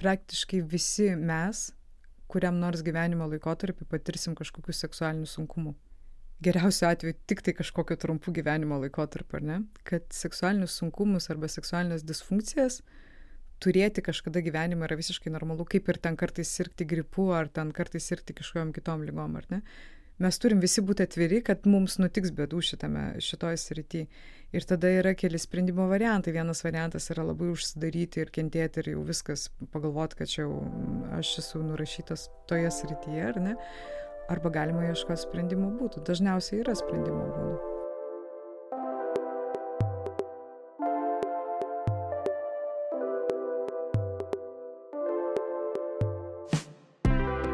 praktiškai visi mes, kuriam nors gyvenimo laikotarpį patirsim kažkokių seksualinių sunkumų. Geriausiu atveju tik tai kažkokio trumpų gyvenimo laikotarpio, ar ne? Kad seksualinius sunkumus arba seksualinės disfunkcijas turėti kažkada gyvenime yra visiškai normalu, kaip ir ten kartais sirgti gripu, ar ten kartais sirgti kažkokiom kitom ligom, ar ne? Mes turim visi būti atviri, kad mums nutiks bėdų šitoj srity. Ir tada yra keli sprendimo variantai. Vienas variantas yra labai užsidaryti ir kentėti ir jau viskas pagalvoti, kad čia jau aš esu nurašytas toje srityje, ar ne? Arba galima ieškoti sprendimo būdų. Dažniausiai yra sprendimo būdų.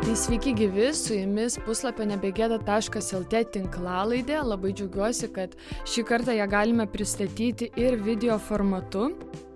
Tai sveiki gyvi, su jumis puslapio nebegėda.lt tinklalaidė. Labai džiaugiuosi, kad šį kartą ją galime pristatyti ir video formatu.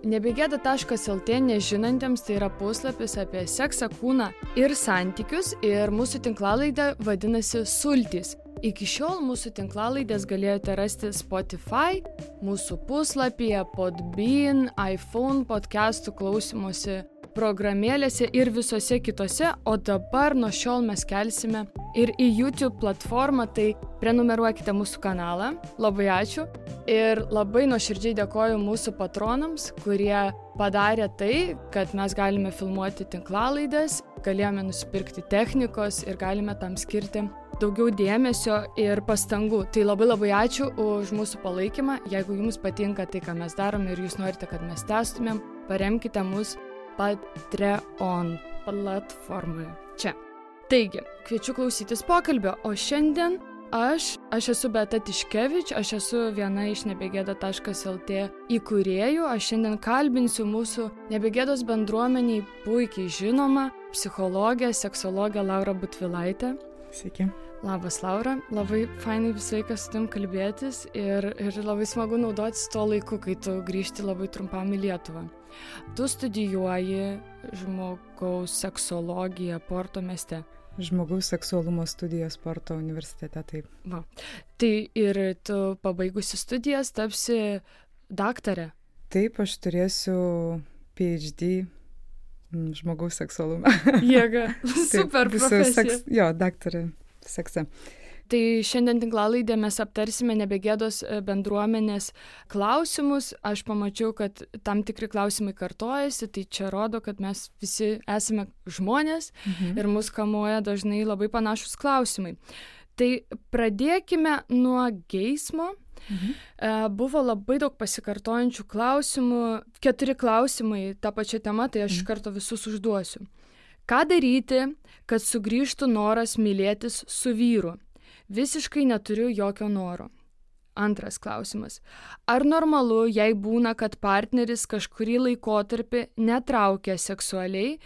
Nebegėda.lt nežinantiems tai yra puslapis apie seksą, kūną ir santykius, ir mūsų tinklalaidė vadinasi Sultys. Iki šiol mūsų tinklalaidės galėjote rasti Spotify, mūsų puslapyje, Podbean, iPhone podcastų klausymosi programėlėse ir visose kitose, o dabar nuo šiol mes kelsime ir į YouTube platformą, tai prenumeruokite mūsų kanalą. Labai ačiū ir labai nuoširdžiai dėkoju mūsų patronams, kurie padarė tai, kad mes galime filmuoti tinklalaidės, galėjome nusipirkti technikos ir galime tam skirti daugiau dėmesio ir pastangų. Tai labai ačiū už mūsų palaikymą. Jeigu jums patinka tai, ką mes darome ir jūs norite, kad mes tęstumėm, paremkite mus Patreon platformoje. Čia. Taigi, kviečiu klausytis pokalbio, o šiandien aš esu Beata Tiškevič, aš esu viena iš nebegėda.lt įkūrėjų. Aš šiandien kalbinsiu mūsų nebegėdos bendruomeniai puikiai žinomą psichologę, seksologę Laurą Butvilaitę. Sveiki. Labas, Laura. Labai fainai visą laiką su tavim kalbėtis ir labai smagu naudotis tuo laiku, kai tu grįžti labai trumpam į Lietuvą. Tu studijuoji žmogaus seksologiją Porto mieste. Žmogaus seksualumo studijas Porto universitete, taip. Va. Tai ir tu pabaigusi studijas tapsi daktarė. Taip, aš turėsiu PhD žmogaus seksualumą. Jėga, super profesija. Jo, daktarė sekse. Tai šiandien tinklalaidė mes aptarsime nebegėdos bendruomenės klausimus. Aš pamačiau, kad tam tikri klausimai kartojasi, tai čia rodo, kad mes visi esame žmonės ir mus kamuoja dažnai labai panašus klausimai. Tai pradėkime nuo geismo. Buvo labai daug pasikartojančių klausimų, 4 klausimai tą pačią temą, tai aš iš karto visus užduosiu. Ką daryti, kad sugrįžtų noras mylėtis su vyru? Visiškai neturiu jokio noro. Antras klausimas. Ar normalu, jei būna, kad partneris kažkurį laikotarpį netraukia seksualiai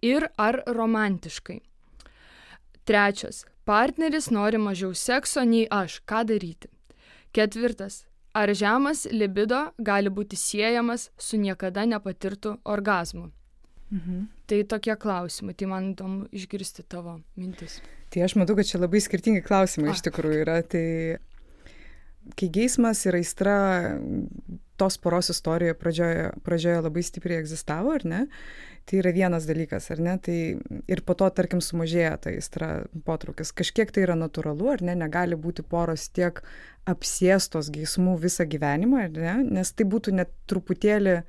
ir ar romantiškai? Trečias. Partneris nori mažiau sekso nei aš. Ką daryti? Ketvirtas. Ar žemas libido gali būti siejamas su niekada nepatirtu orgazmu? Tai tokie klausimai, tai man įdomu išgirsti tavo mintis. Tai aš matau, kad čia labai skirtingi klausimai iš tikrųjų yra. Tai kai geismas ir aistra tos poros istorijoje pradžioje labai stipriai egzistavo, ar ne? Tai yra vienas dalykas, ar ne? Tai ir po to, tarkim, sumažėja ta aistra potraukis. Kažkiek tai yra natūralu, ar ne? Negali būti poros tiek apsėstos geismų visą gyvenimą, ar ne? Nes tai būtų net truputėlį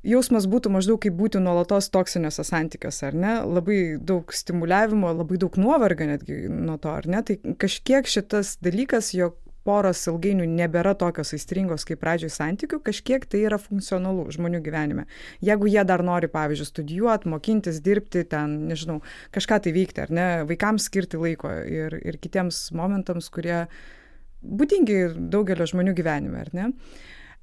jausmas būtų maždaug kaip būti nuolatos toksiniuose santykiuose, ar ne? Labai daug stimuliavimo, labai daug nuovargio netgi nuo to, ar ne? Tai kažkiek šitas dalykas, jog poros ilgainiui nebėra tokios aistringos kaip pradžioj santykių, kažkiek tai yra funkcionalu žmonių gyvenime. Jeigu jie dar nori, pavyzdžiui, studijuoti, mokintis, dirbti, ten, nežinau, kažką tai veikti, ar ne? Vaikams skirti laiko ir kitiems momentams, kurie būdingi daugelio žmonių gyvenime, ar ne?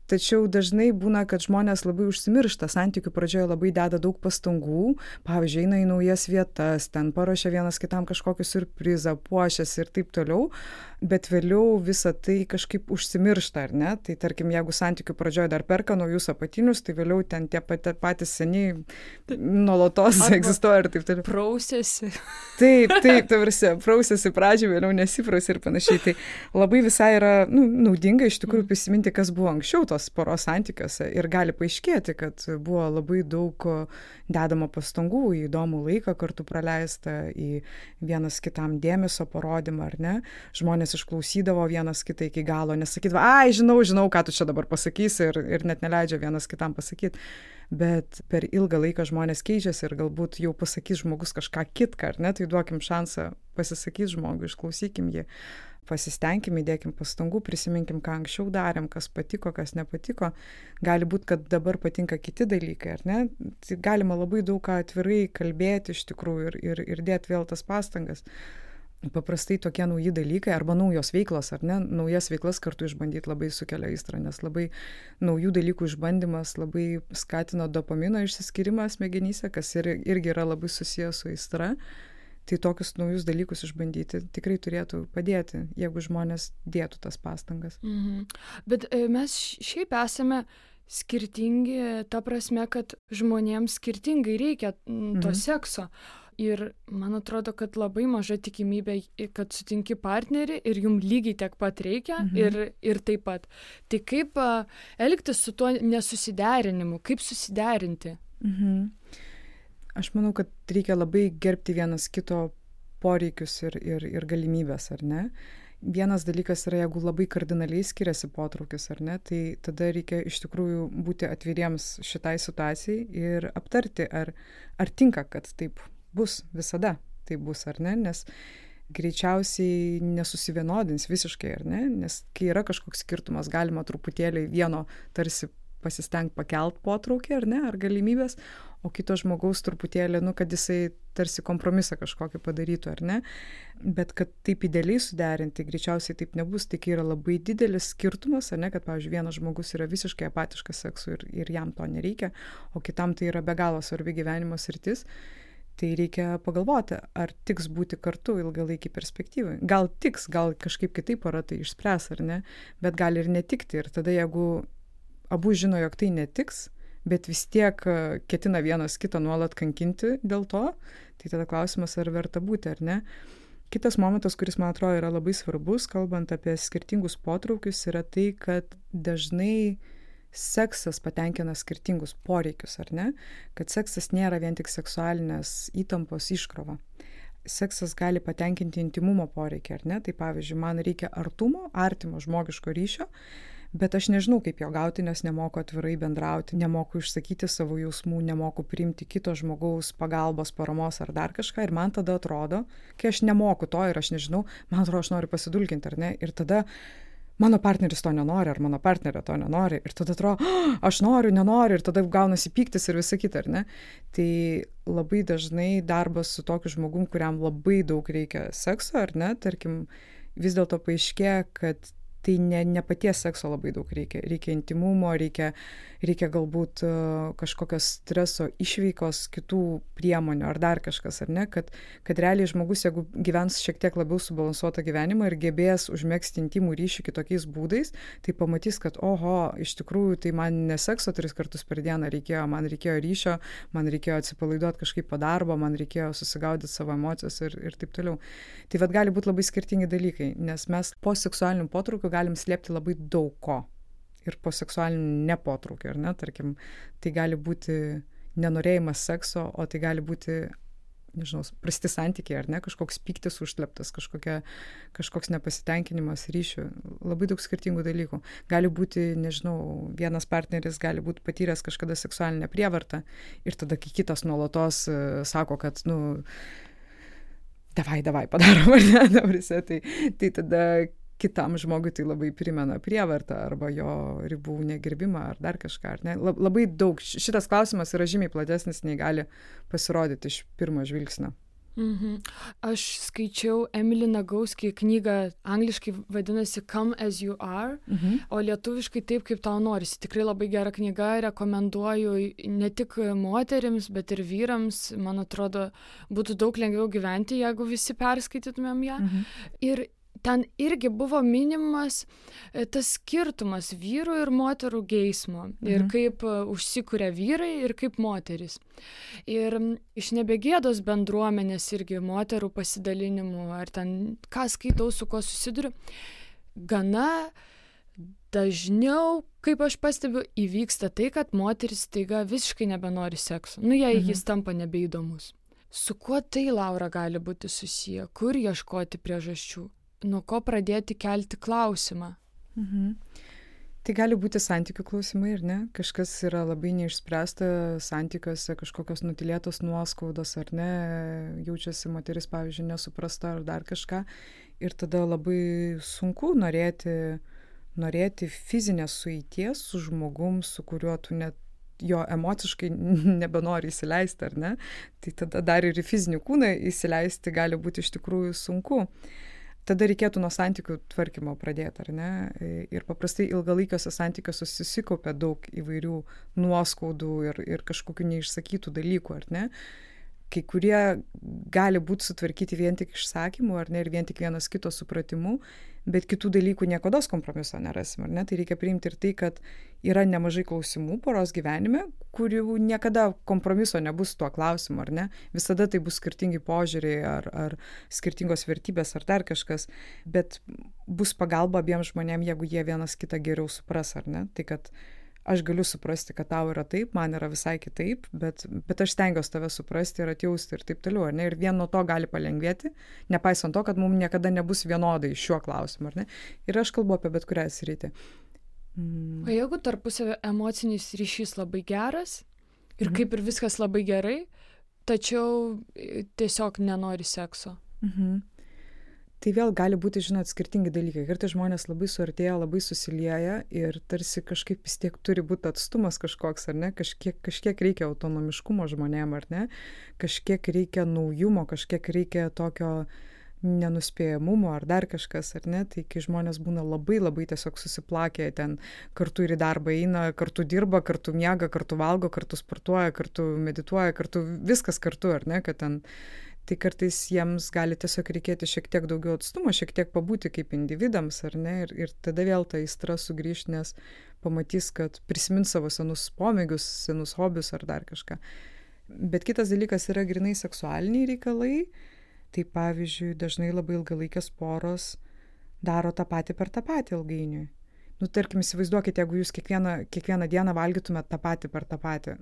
Tačiau dažnai būna, kad žmonės labai užsimiršta, santykių pradžioje labai deda daug pastangų, pavyzdžiui, eina į naujas vietas, ten paruošia vienas kitam kažkokį siurprizą, puošiasi ir taip toliau, bet vėliau visą tai kažkaip užsimiršta, ar ne? Tai tarkim, jeigu santykių pradžioje dar perka naujus apatinius, tai vėliau ten tie patys seniai nuolatos egzistuoja ir taip toliau. Prausėsi. Taip, tavrasi, prausėsi pradžioje, vėliau nesiprausė ir panašiai. Tai labai visai yra naudinga iš tikrųjų prisiminti, kas buvo anksčiau tos poros santykiuose ir gali paaiškėti, kad buvo labai daug dedamo pastangų į įdomų laiką kartu praleistą, į vienas kitam dėmesio parodymą, ar ne? Žmonės išklausydavo vienas kitą iki galo, nesakydavo, ai, žinau, ką tu čia dabar pasakysi ir net neleidžia vienas kitam pasakyti. Bet per ilgą laiką žmonės keičiasi ir galbūt jau pasakys žmogus kažką kitką, ar ne? Tai duokim šansą pasisakyti žmogui, išklausykim jį. Pasistengim, įdėkim pastangų, prisiminkim, ką anksčiau darėm, kas patiko, kas nepatiko. Gali būti, kad dabar patinka kiti dalykai, ar ne? Tai galima labai daug ką atvirai kalbėti iš tikrųjų ir dėti vėl tas pastangas. Paprastai tokie nauji dalykai arba naujos veiklos, ar ne? Naujas veiklas kartu išbandyti labai sukelia aistrą, nes labai naujų dalykų išbandymas labai skatina dopamino išsiskyrimą smegenyse, kas irgi yra labai susijęs su aistra. Tai tokius naujus dalykus išbandyti tikrai turėtų padėti, jeigu žmonės dėtų tas pastangas. Bet mes šiaip esame skirtingi, ta prasme, kad žmonėms skirtingai reikia to sekso. Ir man atrodo, kad labai maža tikimybė, kad sutinki partnerį ir jum lygiai tiek pat reikia ir taip pat. Tai kaip elgtis su tuo nesusiderinimu, kaip susiderinti? Aš manau, kad reikia labai gerbti vienas kito poreikius ir galimybės, ar ne? Vienas dalykas yra, jeigu labai kardinaliai skiriasi potraukis, ar ne, tai tada reikia iš tikrųjų būti atviriems šitai situacijai ir aptarti, ar tinka, kad taip bus visada, taip bus, ar ne, nes greičiausiai nesusivienodins visiškai, ar ne, nes kai yra kažkoks skirtumas, galima truputėlį vieno tarsi pasistengti pakelt potraukį, ar ne, ar galimybės, o kito žmogaus truputėlį, kad jisai tarsi kompromisą kažkokį padarytų, ar ne, bet kad taip idealiai suderinti, greičiausiai taip nebus, tai kai yra labai didelis skirtumas, ar ne, kad, pavyzdžiui, vienas žmogus yra visiškai apatiškas seksui ir jam to nereikia, o kitam tai yra be galo svarbi gyvenimo sritis, tai reikia pagalvoti, ar tiks būti kartu ilgalaikį perspektyvai. Gal tiks, gal kažkaip kitaip pora tai išspręs, ar ne, bet gali ir netikti, ir tada jeigu abu žino, jog tai netiks, bet vis tiek ketina vienas kitą nuolat kankinti dėl to, tai tada klausimas, ar verta būti, ar ne. Kitas momentas, kuris, man atrodo, yra labai svarbus, kalbant apie skirtingus potraukius, yra tai, kad dažnai seksas patenkina skirtingus poreikius, ar ne? Kad seksas nėra vien tik seksualinės įtampos iškrova. Seksas gali patenkinti intimumo poreikį, ar ne? Tai pavyzdžiui, man reikia artumo, artimo žmogiško ryšio, bet aš nežinau, kaip jo gauti, nes nemoku atvirai bendrauti, nemoku išsakyti savo jausmų, nemoku priimti kito žmogaus pagalbos, paramos ar dar kažką. Ir man tada atrodo, kai aš nemoku to ir aš nežinau, man atrodo, aš noriu pasidulkinti, ar ne? Ir tada mano partneris to nenori, ar mano partnerė to nenori. Ir tada atrodo, aš noriu, nenoriu, ir tada gaunasi pyktis ir visa kita, ar ne? Tai labai dažnai darbas su tokiu žmogum, kuriam labai daug reikia sekso, ar ne? Tarkim, vis dėlto paaiškėja, kad tai ne paties sekso labai daug reikia. Reikia intimumo, reikia galbūt kažkokios streso išveikos, kitų priemonių ar dar kažkas, ar ne, kad realiai žmogus, jeigu gyvens šiek tiek labiau subalansuotą gyvenimą ir gebės užmegzti intimų ryšį kitokiais būdais, tai pamatys, kad oho, iš tikrųjų tai man ne sekso 3 kartus per dieną reikėjo, man reikėjo ryšio, man reikėjo atsipalaiduoti kažkaip po darbo, man reikėjo susigaudyti savo emocijas ir taip toliau. Tai vat gali būti labai skirtingi dalykai, nes mes po seksualinių potraukių galim slėpti labai daug ko. Ir po seksualinių nepotraukio, ar ne, tarkim, tai gali būti nenorėjimas sekso, o tai gali būti, nežinau, prasti santykiai, ar ne, kažkoks pyktis užsleptas, kažkoks nepasitenkinimas ryšių, labai daug skirtingų dalykų. Gali būti, nežinau, vienas partneris gali būti patyręs kažkada seksualinę prievartą ir tada, kai kitas nuolatos sako, kad, davai, padarom, ar ne, tai tada kitam žmogui tai labai primena prievartą arba jo ribų negerbimą ar dar kažką, ar ne? Labai daug. Šitas klausimas yra žymiai platesnis, nei gali pasirodyti iš pirmo žvilgsnio. Aš skaičiau Emily Nagoski knygą, angliškai vadinasi Come as you are, o lietuviškai Taip, kaip tau norisi. Tikrai labai gera knyga, rekomenduoju ne tik moterims, bet ir vyrams. Man atrodo, būtų daug lengviau gyventi, jeigu visi perskaitytumėm ją. Ir ten irgi buvo minimas tas skirtumas vyrų ir moterų geismo ir kaip užsikuria vyrai ir kaip moterys. Ir iš nebegėdos bendruomenės irgi moterų pasidalinimų, ar ten ką skaitau, su kuo susiduriu, gana dažniau, kaip aš pastebiu, įvyksta tai, kad moteris staiga visiškai nebenori sekso. Jei jis tampa nebeįdomus. Su kuo tai, Laura, gali būti susiję? Kur ieškoti priežasčių? Nuo ko pradėti kelti klausimą? Tai gali būti santykių klausimai, ar ne? Kažkas yra labai neišspręsta santykiuose, kažkokios nutilėtos nuoskaudos, ar ne? Jaučiasi moteris, pavyzdžiui, nesuprasta ar dar kažką. Ir tada labai sunku norėti fizinės sueities su žmogum, su kuriuo tu net jo emociškai nebenori įsileisti, ar ne? Tai tada dar ir į fizinį kūną įsileisti gali būti iš tikrųjų sunku. Tada reikėtų nuo santykių tvarkymo pradėti, ar ne? Ir paprastai ilgalaikiuose santykiuose susikaupia daug įvairių nuoskaudų ir kažkokių neišsakytų dalykų, ar ne? Kai kurie gali būti sutvarkyti vien tik išsakymu, ar ne, ir vien tik vienas kito supratimu, bet kitų dalykų niekados kompromiso nerasim, ar ne? Tai reikia priimti ir tai, kad yra nemažai klausimų poros gyvenime, kurių niekada kompromiso nebus tuo klausimu, ar ne? Visada tai bus skirtingi požiūriai ar skirtingos vertybės ar dar kažkas, bet bus pagalba abiems žmonėms, jeigu jie vienas kitą geriau supras, ar ne? Tai kad aš galiu suprasti, kad tau yra taip, man yra visai kitaip, bet aš stengiuosi tave suprasti ir atjausti ir taip toliau, ar ne? Ir vien nuo to gali palengvėti, nepaisant to, kad mums niekada nebus vienodai šiuo klausimu, ar ne? Ir aš kalbu apie bet kurią sritį. O jeigu tarpusavio emocinis ryšys labai geras ir kaip ir viskas labai gerai, tačiau tiesiog nenori sekso? Tai vėl gali būti, žinot, skirtingi dalykai. Kartais žmonės labai suartėja, labai susilieja ir tarsi kažkaip vis tiek turi būti atstumas kažkoks, ar ne? Kažkiek reikia autonomiškumo žmonėm, ar ne? Kažkiek reikia naujumo, kažkiek reikia tokio nenuspėjamumo ar dar kažkas, ar ne? Tai kai žmonės būna labai labai tiesiog susiplakę, ten kartu ir į darbą eina, kartu dirba, kartu miega, kartu valgo, kartu sportuoja, kartu medituoja, kartu viskas kartu, ar ne? Kad ten tai kartais jiems gali tiesiog reikėti šiek tiek daugiau atstumo, šiek tiek pabūti kaip individams, ar ne? Ir tada vėl ta aistra sugrįš, nes pamatys, kad prisimins savo senus pomėgius, senus hobius ar dar kažką. Bet kitas dalykas yra grynai seksualiniai reikalai. Tai pavyzdžiui, dažnai labai ilgalaikės poros daro tą patį per tą patį ilgainiui. Tarkim, įsivaizduokite, jeigu jūs kiekvieną dieną valgytumėt tą patį per tą patį.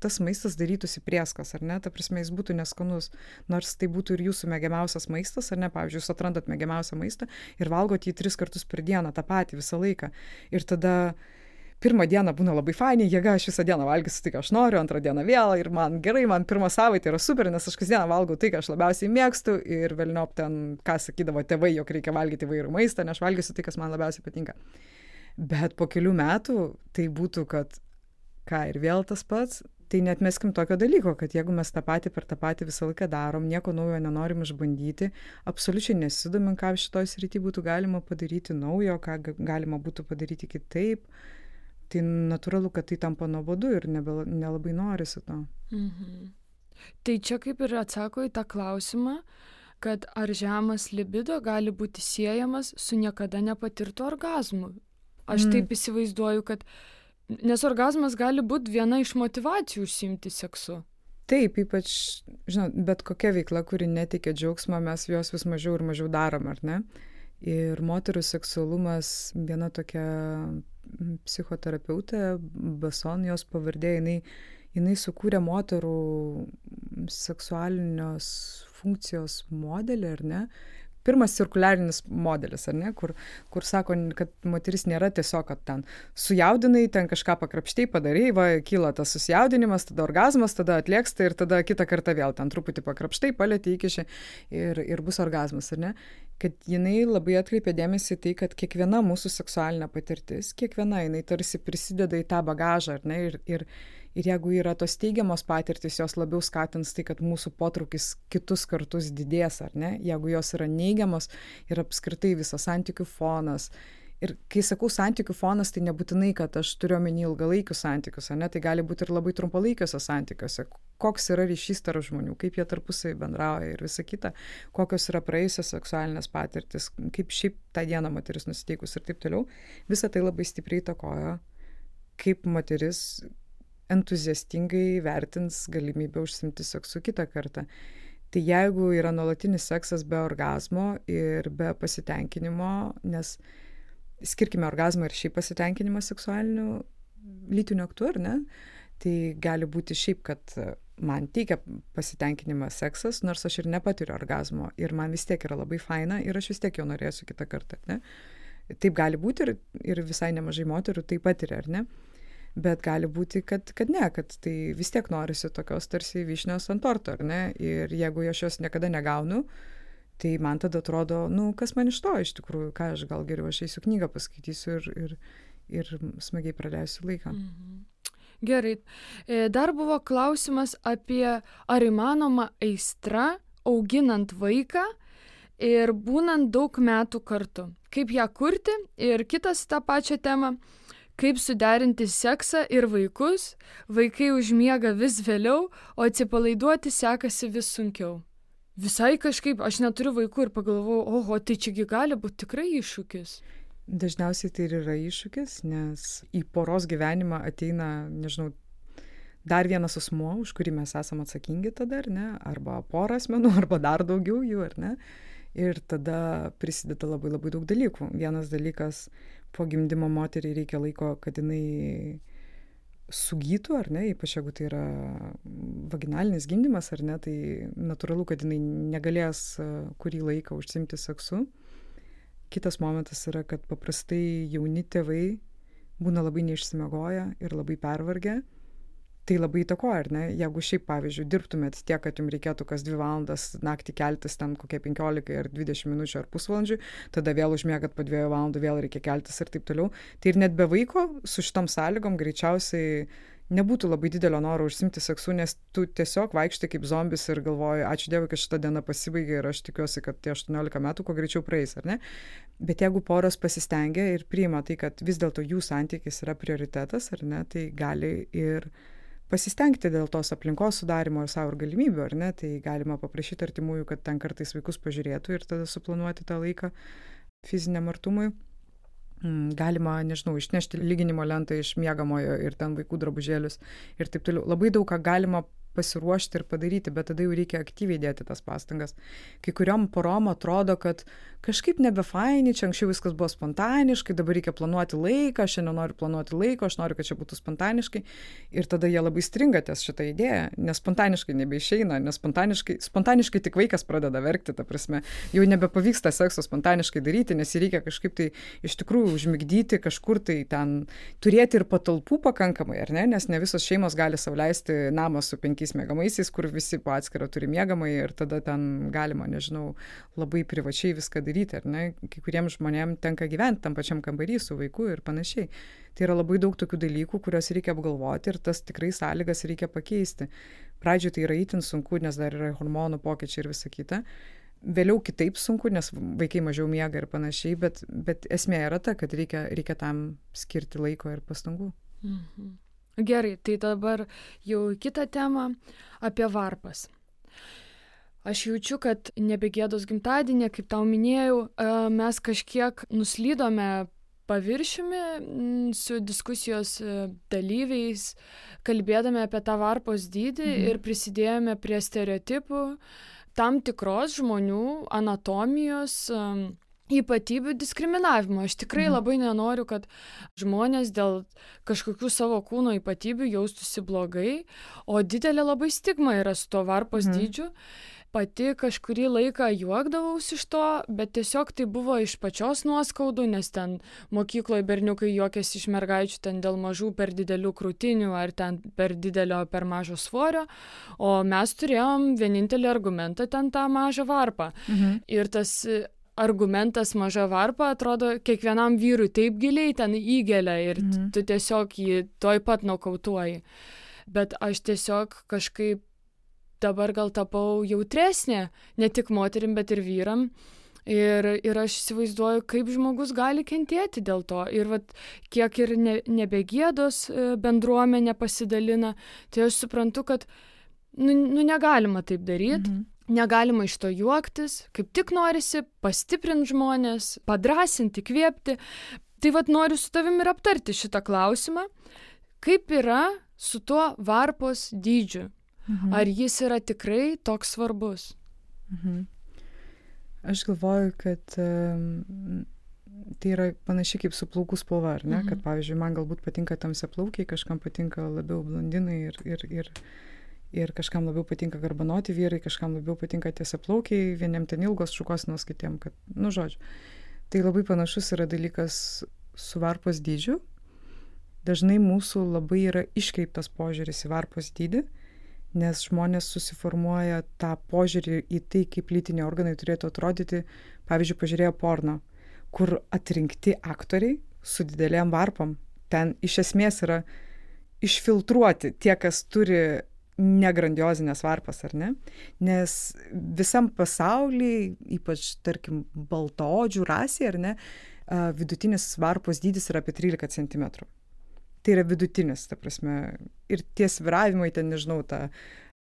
Tas maistas darytųsi prieskas, ar ne? Ta prasme, jis būtų neskanus. Nors tai būtų ir jūsų mėgiamiausias maistas, ar ne? Pavyzdžiui, jūs atrandat mėgiamiausią maistą ir valgot jį 3 kartus per dieną, tą patį visą laiką. Ir tada pirmą dieną būna labai fainai, jėga, aš visą dieną valgysiu tai, ką aš noriu, antrą dieną vėl ir man gerai, man pirmą savaitę yra super, nes aš kasdieną valgau tai, ką aš labiausiai mėgstu ir velniop ten, ką sakydavo tėvai, jog reikia valgyti įvairių maistą, nes aš valgysiu tai, kas man labiausiai patinka. Bet po kelių metų tai būtų, kad ir vėl tas pats, tai neatmeskim tokio dalyko, kad jeigu mes tą patį per tą patį visą laiką darom, nieko naujo nenorim išbandyti, absoliučiai nesidomim, ką šitoj srity būtų galima padaryti naujo, ką galima būtų padaryti kitaip, tai natūralu, kad tai tampa nuobodu ir nelabai norisi to. Tai čia kaip ir atsako į tą klausimą, kad ar žemas libido gali būti siejamas su niekada nepatirtu orgazmu. Aš taip įsivaizduoju, kad nes orgazmas gali būti viena iš motyvacijų užsiimti seksu. Taip, ypač, žinot, bet kokia veikla, kuri neteikia džiaugsmą, mes jos vis mažiau ir mažiau darom, ar ne? Ir moterų seksualumas, viena tokia psichoterapeutė, Bason, jos pavardė, jinai sukūrė moterų seksualinios funkcijos modelį, ar ne? Pirmas cirkuliarinis modelis, ar ne, kur sako, kad moteris nėra tiesiog, kad ten sujaudinai, ten kažką pakrapštai padarai, va, kyla tas susijaudinimas, tada orgazmas, tada atlieksta ir tada kitą kartą vėl ten truputį pakrapštai, palėti įkiši ir bus orgazmas, ar ne? Kad jinai labai atkreipė dėmesį tai, kad kiekviena mūsų seksualinė patirtis, kiekviena jinai tarsi prisideda į tą bagažą, ar ne? Ir jeigu yra tos teigiamos patirtis, jos labiau skatins tai, kad mūsų potraukis kitus kartus didės, ar ne? Jeigu jos yra neigiamos ir apskritai visas santykių fonas. Ir kai sakau santykių fonas, tai nebūtinai, kad aš turiu omeny ilgalaikius santykius, ar ne? Tai gali būti ir labai trumpalaikiuose santykiuose. Koks yra ryšys tarp žmonių, kaip jie tarpusai bendrauja ir visa kita, kokios yra praėjusios seksualinės patirtis, kaip šiaip tą dieną moteris nusiteikus ir taip toliau. Visa tai labai stipriai įtakoja, kaip moteris entuziastingai vertins galimybę užsiimti seksu kitą kartą. Tai jeigu yra nuolatinis seksas be orgazmo ir be pasitenkinimo, nes skirkime orgazmą ir šiaip pasitenkinimą seksualiniu lytiniu aktu, ar ne? Tai gali būti šiaip, kad man teikia pasitenkinimą seksas, nors aš ir nepatiriu orgazmo ir man vis tiek yra labai faina ir aš vis tiek jo norėsiu kitą kartą, ne? Taip gali būti ir visai nemažai moterų tai patiria, ar ne? Bet gali būti, kad ne, kad tai vis tiek norisi tokios tarsi vyšnios ant torto, ar ne? Ir jeigu aš jos niekada negaunu, tai man tada atrodo, kas man iš to iš tikrųjų, ką aš gal geriau aš eisiu knygą paskaitysiu ir smagiai praleisiu laiką. Gerai. Dar buvo klausimas apie ar įmanoma aistra auginant vaiką ir būnant daug metų kartu. Kaip ją kurti ir kitas tą pačią temą. Kaip suderinti seksą ir vaikus, vaikai užmiega vis vėliau, o atsipalaiduoti sekasi vis sunkiau. Visai kažkaip, aš neturiu vaikų ir pagalvojau, oho, tai čiagi gali būti tikrai iššūkis. Dažniausiai tai ir yra iššūkis, nes į poros gyvenimą ateina, nežinau, dar vienas asmuo, už kurį mes esame atsakingi tada, ar ne, arba pora asmenų, arba dar daugiau jų, ar ne. Ir tada prisideda labai labai daug dalykų. Vienas dalykas, po gimdymo moteriai reikia laiko, kad jinai sugytų, ar ne, ypač jeigu tai yra vaginalinis gimdymas, ar ne, tai natūralu, kad jinai negalės kurį laiką užsiimti seksu. Kitas momentas yra, kad paprastai jauni tėvai būna labai neišsimiegoję ir labai pervargę. Tai labai įtakoja, ar ne? Jeigu šiaip, pavyzdžiui, dirbtumėt tiek, kad jums reikėtų kas 2 valandas naktį keltis ten kokie 15 ar 20 minučių ar pusvalandžių, tada vėl užmiegat po 2 valandų, vėl reikia keltis ir taip toliau. Tai ir net be vaiko su šitom sąlygom greičiausiai nebūtų labai didelio noro užsimti seksu, nes tu tiesiog vaikštai kaip zombis ir galvoji, ačiū Dievui, kad šita diena pasibaigė ir aš tikiuosi, kad tie 18 metų kuo greičiau praeis, ar ne? Bet jeigu poros pasistengia ir priima tai, kad vis dėlto jų santykis yra prioritetas, ar ne, tai gali ir pasistengti dėl tos aplinkos sudarimo ir savo galimybių, ar ne, tai galima paprašyti artimųjų, kad ten kartais vaikus pažiūrėtų ir tada suplanuoti tą laiką fiziniam artumui. Galima, nežinau, išnešti lyginimo lentą iš miegamojo ir ten vaikų drabužėlius ir taip toliau. Labai daug ką galima pasiruošti ir padaryti, bet tada jau reikia aktyviai dėti tas pastangas. Kai kuriom porom atrodo, kad kažkaip nebefaini, čia anksčiau viskas buvo spontaniškai, dabar reikia planuoti laiką, aš nenoriu planuoti laiko, aš noriu, kad čia būtų spontaniškai. Ir tada jie labai stringa ties šitą idėją, nes spontaniškai nebeišeina, nes spontaniškai tik vaikas pradeda verkti, ta prasme, jau nebepavyksta sekso spontaniškai daryti, nes jį reikia kažkaip tai iš tikrųjų užmigdyti, kažkur tai ten turėti ir patalpų pakankamai, ar ne, nes ne visos šeimos gali sau leisti namą su 5 miegamaisiais, kur visi po atskirą turi miegamąjį ir tada ten galima, nežinau, labai privačiai viską daryti, ar ne? Kai kuriems žmonėms tenka gyventi tam pačiam kambarį su vaiku ir panašiai. Tai yra labai daug tokių dalykų, kuriuos reikia apgalvoti ir tas tikrai sąlygas reikia pakeisti. Pradžioje tai yra itin sunku, nes dar yra hormonų pokyčiai ir visa kita. Vėliau kitaip sunku, nes vaikai mažiau miega ir panašiai, bet esmė yra ta, kad reikia tam skirti laiko ir pastangų. Mhm. Gerai, tai dabar jau kitą temą apie varpas. Aš jaučiu, kad nebegėdos gimtadienį, kaip tau minėjau, mes kažkiek nuslydome paviršiumi su diskusijos dalyviais, kalbėdami apie tą varpos dydį ir prisidėjome prie stereotipų tam tikros žmonių anatomijos ypatybių diskriminavimo. Aš tikrai labai nenoriu, kad žmonės dėl kažkokių savo kūno ypatybių jaustųsi blogai, o didelė labai stigma yra su to varpos dydžiu. Pati kažkurį laiką juokdavausi iš to, bet tiesiog tai buvo iš pačios nuoskaudų, nes ten mokykloje berniukai juokėsi iš mergaičių ten dėl mažų per didelių krūtinių ar ten per didelio per mažo svorio, o mes turėjom vienintelį argumentą ten tą mažą varpą. Ir tas argumentas maža varpa atrodo kiekvienam vyrui taip giliai ten įgelia ir tu tiesiog jį toj pat nokautuoji. Bet aš tiesiog kažkaip dabar gal tapau jautresnė, ne tik moterim, bet ir vyram. Ir aš įsivaizduoju, kaip žmogus gali kentėti dėl to. Ir vat, kiek ir nebegėdos bendruomenė pasidalina, tai aš suprantu, kad negalima taip daryti. Negalima iš to juoktis, kaip tik norisi pastiprinti žmonės, padrasinti, įkvėpti. Tai vat noriu su tavimi ir aptarti šitą klausimą. Kaip yra su tuo varpos dydžiu? Ar jis yra tikrai toks svarbus? Aš galvoju, kad tai yra panašiai kaip su plaukų spalva, ar ne? Kad, pavyzdžiui, man galbūt patinka tamsiaplaukiai, kažkam patinka labiau blondinai ir kažkam labiau patinka garbanoti vyrai, kažkam labiau patinka tiesiaplaukiai, vieniem ten ilgos šukuosenos, kitiem, kad, žodžiu. Tai labai panašus yra dalykas su varpos dydžiu. Dažnai mūsų labai yra iškreiptas požiūris į varpos dydį, nes žmonės susiformuoja tą požiūrį į tai, kaip lytiniai organai turėtų atrodyti, pavyzdžiui, pažiūrėję porno, kur atrinkti aktoriai su didelėm varpom. Ten iš esmės yra išfiltruoti tie, kas turi negrandiozinės varpas, ar ne? Nes visam pasaulyje, ypač, tarkim, baltaodžių rasė, ar ne, vidutinis varpos dydis yra apie 13 cm. Tai yra vidutinis, ta prasme, ir tie svyravimai, ten, nežinau, ta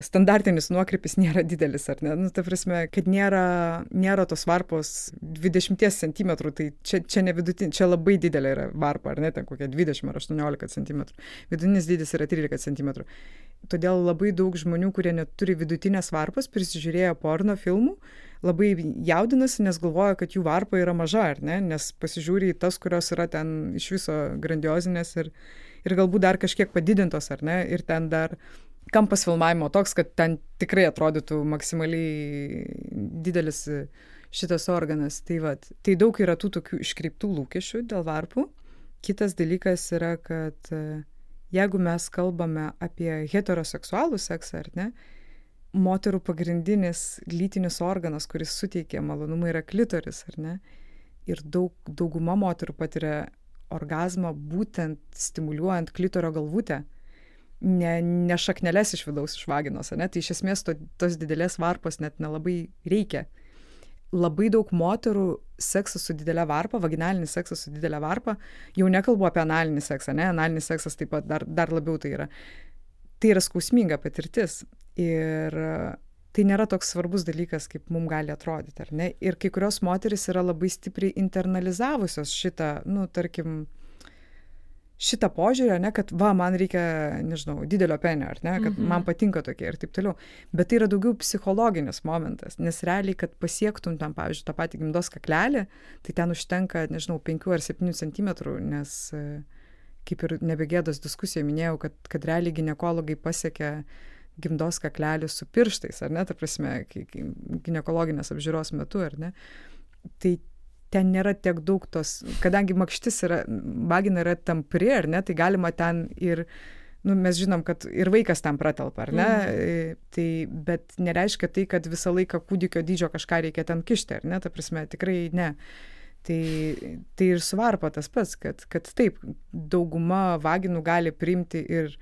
standartinis nuokrypis nėra didelis, ar ne? Ta prasme, kad nėra tos varpos 20 cm, tai čia ne vidutinė, čia labai didelė yra varpa, ar ne, ten kokia 20 ar 18 cm. Vidutinis dydis yra 13 cm. Todėl labai daug žmonių, kurie neturi vidutinės varpos, prisižiūrėjo porno filmų, labai jaudinasi, nes galvoja, kad jų varpa yra maža, ar ne, nes pasižiūri į tas, kurios yra ten iš viso grandiozinės ir galbūt dar kažkiek padidintos, ar ne, ir ten dar kampas filmavimo toks, kad ten tikrai atrodytų maksimaliai didelis šitas organas. Tai daug yra tų tokių iškreiptų lūkesčių dėl varpų. Kitas dalykas yra, kad jeigu mes kalbame apie heteroseksualų seksą, ar ne, moterų pagrindinis lytinis organas, kuris suteikia malonumą, yra klitoris, ar ne? Ir dauguma moterų patiria orgazmą būtent stimuliuojant klitorio galvutę, ne šakneles iš vidaus, iš vaginos, ar ne? Tai iš esmės tos didelės varpos net nelabai reikia. Labai daug moterų seksas su didelė varpa, vaginalinis seksas su didelė varpa, jau nekalbu apie analinį seksą, ne? Analinis seksas taip pat dar labiau tai yra. Tai yra skausminga patirtis ir tai nėra toks svarbus dalykas, kaip mums gali atrodyti, ar ne? Ir kai kurios moterys yra labai stipriai internalizavusios šitą, tarkim, šitą požiūrį, ne, kad man reikia, nežinau, didelio penio, ar ne, kad man patinka tokie ir taip toliau. Bet tai yra daugiau psichologinis momentas, nes realiai, kad pasiektum tam, pavyzdžiui, tą patį gimdos kaklelį, tai ten užtenka, nežinau, 5 ar 7 cm, nes kaip ir nebegėdos diskusija minėjau, kad realiai ginekologai pasiekia gimdos kaklelį su pirštais, ar ne, ta prasme, ginekologinės apžiūros metu, ar ne. Tai ten nėra tiek daug tos, kadangi makštis vagina yra tampri, ar ne, tai galima ten ir, mes žinom, kad ir vaikas ten pratelpa, ar ne, tai, bet nereiškia tai, kad visą laiką kūdikio dydžio kažką reikia ten kišti, ar ne, ta prasme, tikrai ne. Tai ir su varpa tas pats, kad taip, dauguma vaginų gali priimti ir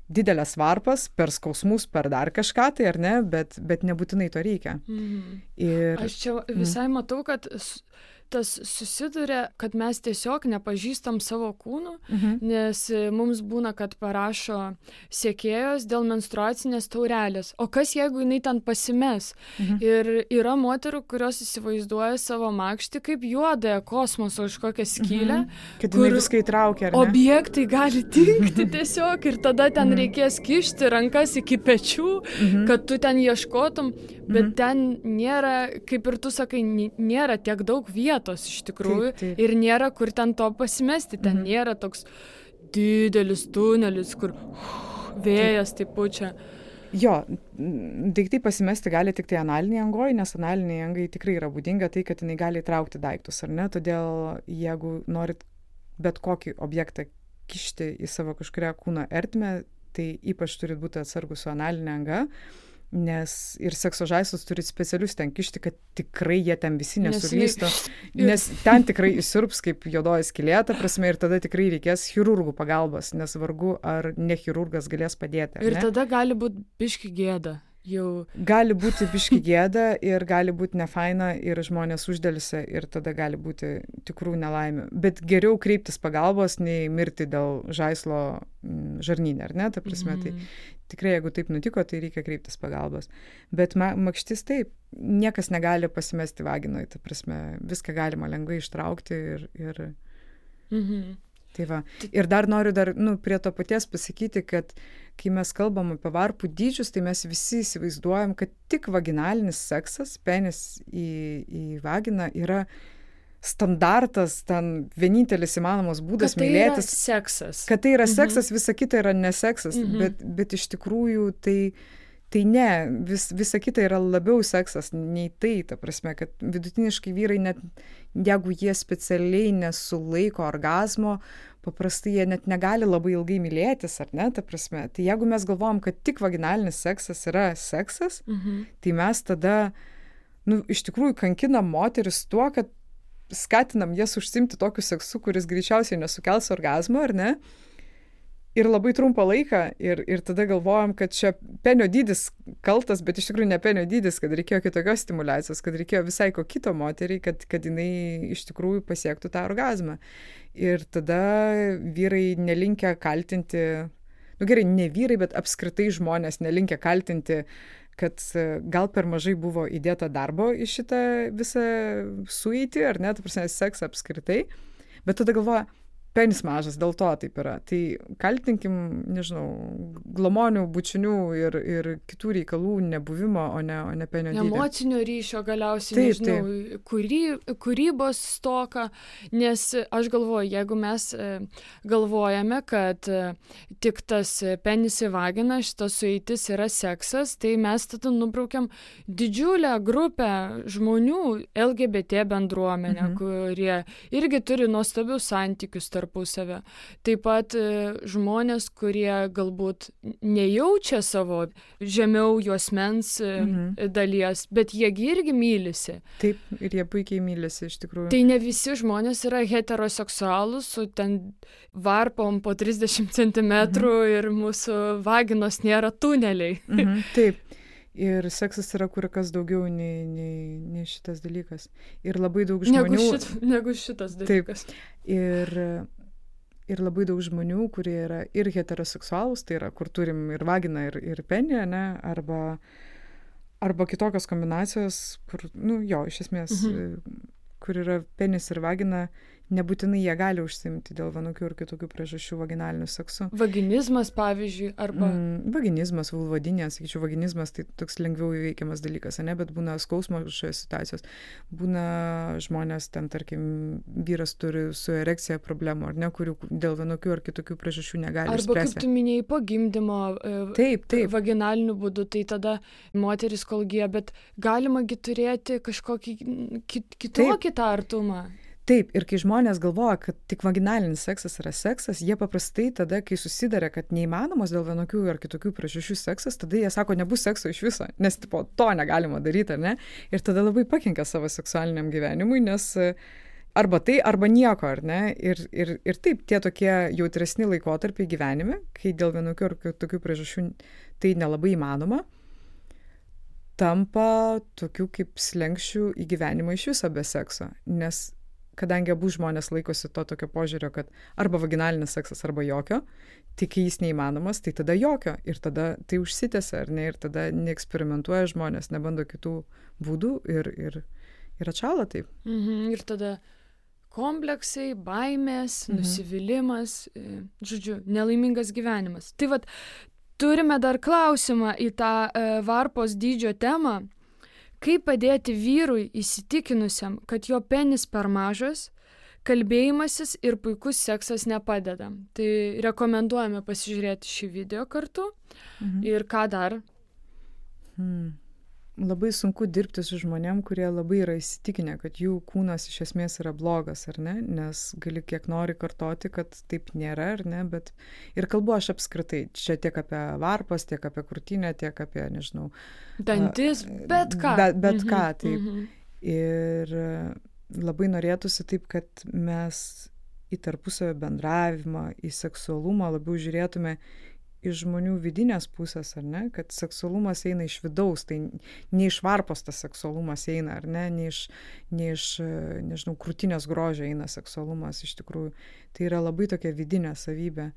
didelės varpas per skausmus, per dar kažką, tai ar ne, bet nebūtinai to reikia. Ir aš čia visai matau, kad tas susiduria, kad mes tiesiog nepažįstam savo kūnų, nes mums būna, kad parašo sekėjos dėl menstruacinės taurelės. O kas, jeigu jinai ten pasimes? Ir yra moterų, kurios įsivaizduoja savo makštį kaip juodąją kosmoso kažkokią skylę, kad jinai viską įtraukia, ar ne? Objektai gali dingti tiesiog ir tada ten reikės kišti rankas iki pečių, kad tu ten ieškotum, bet ten nėra, kaip ir tu sakai, nėra tiek daug vietos iš tikrųjų, taip. Ir nėra kur ten to pasimesti, ten nėra toks didelis tunelis, kur vėjas taip pučia. Jo, daiktai pasimesti gali tik tai analiniai angoj, nes analiniai angai tikrai yra būdinga tai, kad jinai gali įtraukti daiktus, ar ne? Todėl, jeigu norit bet kokį objektą kišti į savo kažkurią kūno ertmę, tai ypač turit būti atsargus su analinė anga, nes ir sekso žaislus turi specialius ten kišti, kad tikrai jie ten visi nesulystų, nes ten tikrai įsirps kaip juodoji skylė, ta prasme, ir tada tikrai reikės chirurgų pagalbos, nes vargu ar ne chirurgas galės padėti. Ir tada gali būti biški gėda. Gali būti biški gėda ir gali būti nefaina ir žmonės uždelsia ir tada gali būti tikrų nelaimių. Bet geriau kreiptis pagalbos, nei mirti dėl žaislo žarnyne, ar ne? Ta prasme, tai tikrai, jeigu taip nutiko, tai reikia kreiptis pagalbos. Bet makštis taip, niekas negali pasimesti vaginoj, ta prasme, viską galima lengvai ištraukti ir tai va. Ir dar noriu prie to paties pasakyti, kad kai mes kalbam apie varpų dydžius, tai mes visi įsivaizduojam, kad tik vaginalinis seksas, penis į vaginą yra standartas, ten vienintelis įmanomas būdas mylėtis. Kad tai yra seksas, visa kita yra neseksas, bet iš tikrųjų tai ne, visa kita yra labiau seksas nei tai, ta prasme, kad vidutiniškai vyrai net, jeigu jie specialiai nesulaiko orgazmo, paprastai jie net negali labai ilgai mylėtis, ar ne, ta prasme. Tai jeigu mes galvojam, kad tik vaginalinis seksas yra seksas, tai mes tada, iš tikrųjų kankinam moteris tuo, kad skatinam jas užsiimti tokiu seksu, kuris greičiausiai nesukels orgazmo, ar ne? Ir labai trumpą laiką, ir tada galvojam, kad čia penio dydis kaltas, bet iš tikrųjų ne penio dydis, kad reikėjo kitokios stimulacijos, kad reikėjo visai ko kito moteriai, kad jinai iš tikrųjų pasiektų tą orgazmą. Ir tada vyrai nelinkę kaltinti, gerai, ne vyrai, bet apskritai žmonės nelinkę kaltinti, kad gal per mažai buvo įdėta darbo į šitą visą sueitį, ar ne, ta prasme, seksą apskritai, bet tada galvoja, penis mažas, dėl to taip yra. Tai kaltinkim, nežinau, glamonių, bučinių ir kitų reikalų nebuvimo, o ne penio dydį. Emocinio ryšio galiausiai, nežinau, kūrybos stoka, nes aš galvoju, jeigu mes galvojame, kad tik tas penis į vaginą, šitas sueitis yra seksas, tai mes tada nubraukiam didžiulę grupę žmonių, LGBT bendruomenę, kurie irgi turi nuostabius santykius tarpusavę. Taip pat žmonės, kurie galbūt nejaučia savo žemiau juosmens dalies, bet jie irgi mylisi. Taip, ir jie puikiai mylisi iš tikrųjų. Tai ne visi žmonės yra heteroseksualūs, su ten varpom po 30 cm ir mūsų vaginos nėra tuneliai. Taip. Ir seksas yra kur kas daugiau nei šitas dalykas. Ir labai daug žmonių... Negu šitas dalykas. Taip. Ir labai daug žmonių, kurie yra ir heteroseksualūs, tai yra, kur turim ir vaginą, ir penį, ne? Arba kitokios kombinacijos, kur, iš esmės, kur yra penis ir vagina, nebūtinai jie gali užsiimti dėl vienokių ir kitokių priežasčių vaginaliniu seksu. Vaginizmas, pavyzdžiui, arba... Vaginizmas, vulvodinė, sakyčiau, vaginizmas tai toks lengviau įveikiamas dalykas, ne? Bet būna skausmo šioje situacijos. Būna žmonės, ten, tarkim, vyras turi su erekcija problemų, ar ne, kurių dėl vienokių ar kitokių priežasčių negali išspręsti. Arba, kaip tu minėjai, po gimdymo vaginaliniu būdu, tai tada moteris kol gyja, bet galimagi turėti kažkokį kitokį tą artumą. Taip, ir kai žmonės galvoja, kad tik vaginalinis seksas yra seksas, jie paprastai tada, kai susiduria, kad neįmanomas dėl vienokių ar kitokių priežasčių seksas, tada jie sako, nebus sekso iš viso, nes to negalima daryti, ar ne? Ir tada labai pakenkia savo seksualiniam gyvenimui, nes arba tai, arba nieko, ar ne? Ir taip, tie tokie jautresni laikotarpiai gyvenime, kai dėl vienokių ar kitokių priežasčių tai nelabai įmanoma, tampa tokių kaip slenksčių į gyvenimą iš viso be sekso, nes kadangi abu žmonės laikosi to tokio požiūrio, kad arba vaginalinis seksas, arba jokio, tik jis neįmanomas, tai tada jokio. Ir tada tai užsitęsia, ar ne? Ir tada neeksperimentuoja žmonės, nebando kitų būdų ir atšąla taip. Ir tada kompleksai, baimės, nusivylimas, žodžiu, nelaimingas gyvenimas. Tai vat, turime dar klausimą į tą varpos dydžio temą. Kaip padėti vyrui įsitikinusiam, kad jo penis per mažas, kalbėjimasis ir puikus seksas nepadeda. Tai rekomenduojame pasižiūrėti šį video kartu. Ir ką dar? Labai sunku dirbti su žmonėm, kurie labai yra įsitikinę, kad jų kūnas iš esmės yra blogas, ar ne? Nes gali kiek nori kartoti, kad taip nėra, ar ne? Bet ir kalbu aš apskritai, čia tiek apie varpas, tiek apie krūtinę, tiek apie, nežinau... Dantis, bet ką. Bet ką, taip. Ir labai norėtųsi taip, kad mes į tarpusavio bendravimą, į seksualumą labiau žiūrėtume iš žmonių vidinės pusės, ar ne, kad seksualumas eina iš vidaus, tai ne iš varpos tas seksualumas eina, ar ne, ne iš nežinau, krūtinės grožio eina seksualumas iš tikrųjų. Tai yra labai tokia vidinė savybė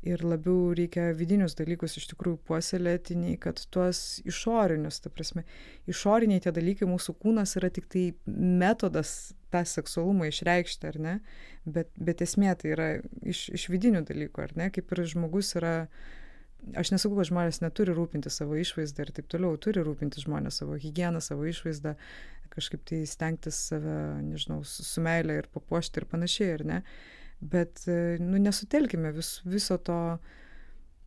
ir labiau reikia vidinius dalykus iš tikrųjų puoselėti, nei kad tuos išorinius, ta prasme, išoriniai tie dalykai, mūsų kūnas yra tik tai metodas tą seksualumą išreikšti, ar ne, bet esmė tai yra iš vidinių dalykų, ar ne, kaip ir žmogus yra aš nesakau, kad žmonės neturi rūpinti savo išvaizdą ir taip toliau, turi rūpinti žmonės savo higieną, savo išvaizdą, kažkaip tai stengtis save, nežinau, su meile ir papuošti ir panašiai, ar ne? Bet, nesutelkime viso to.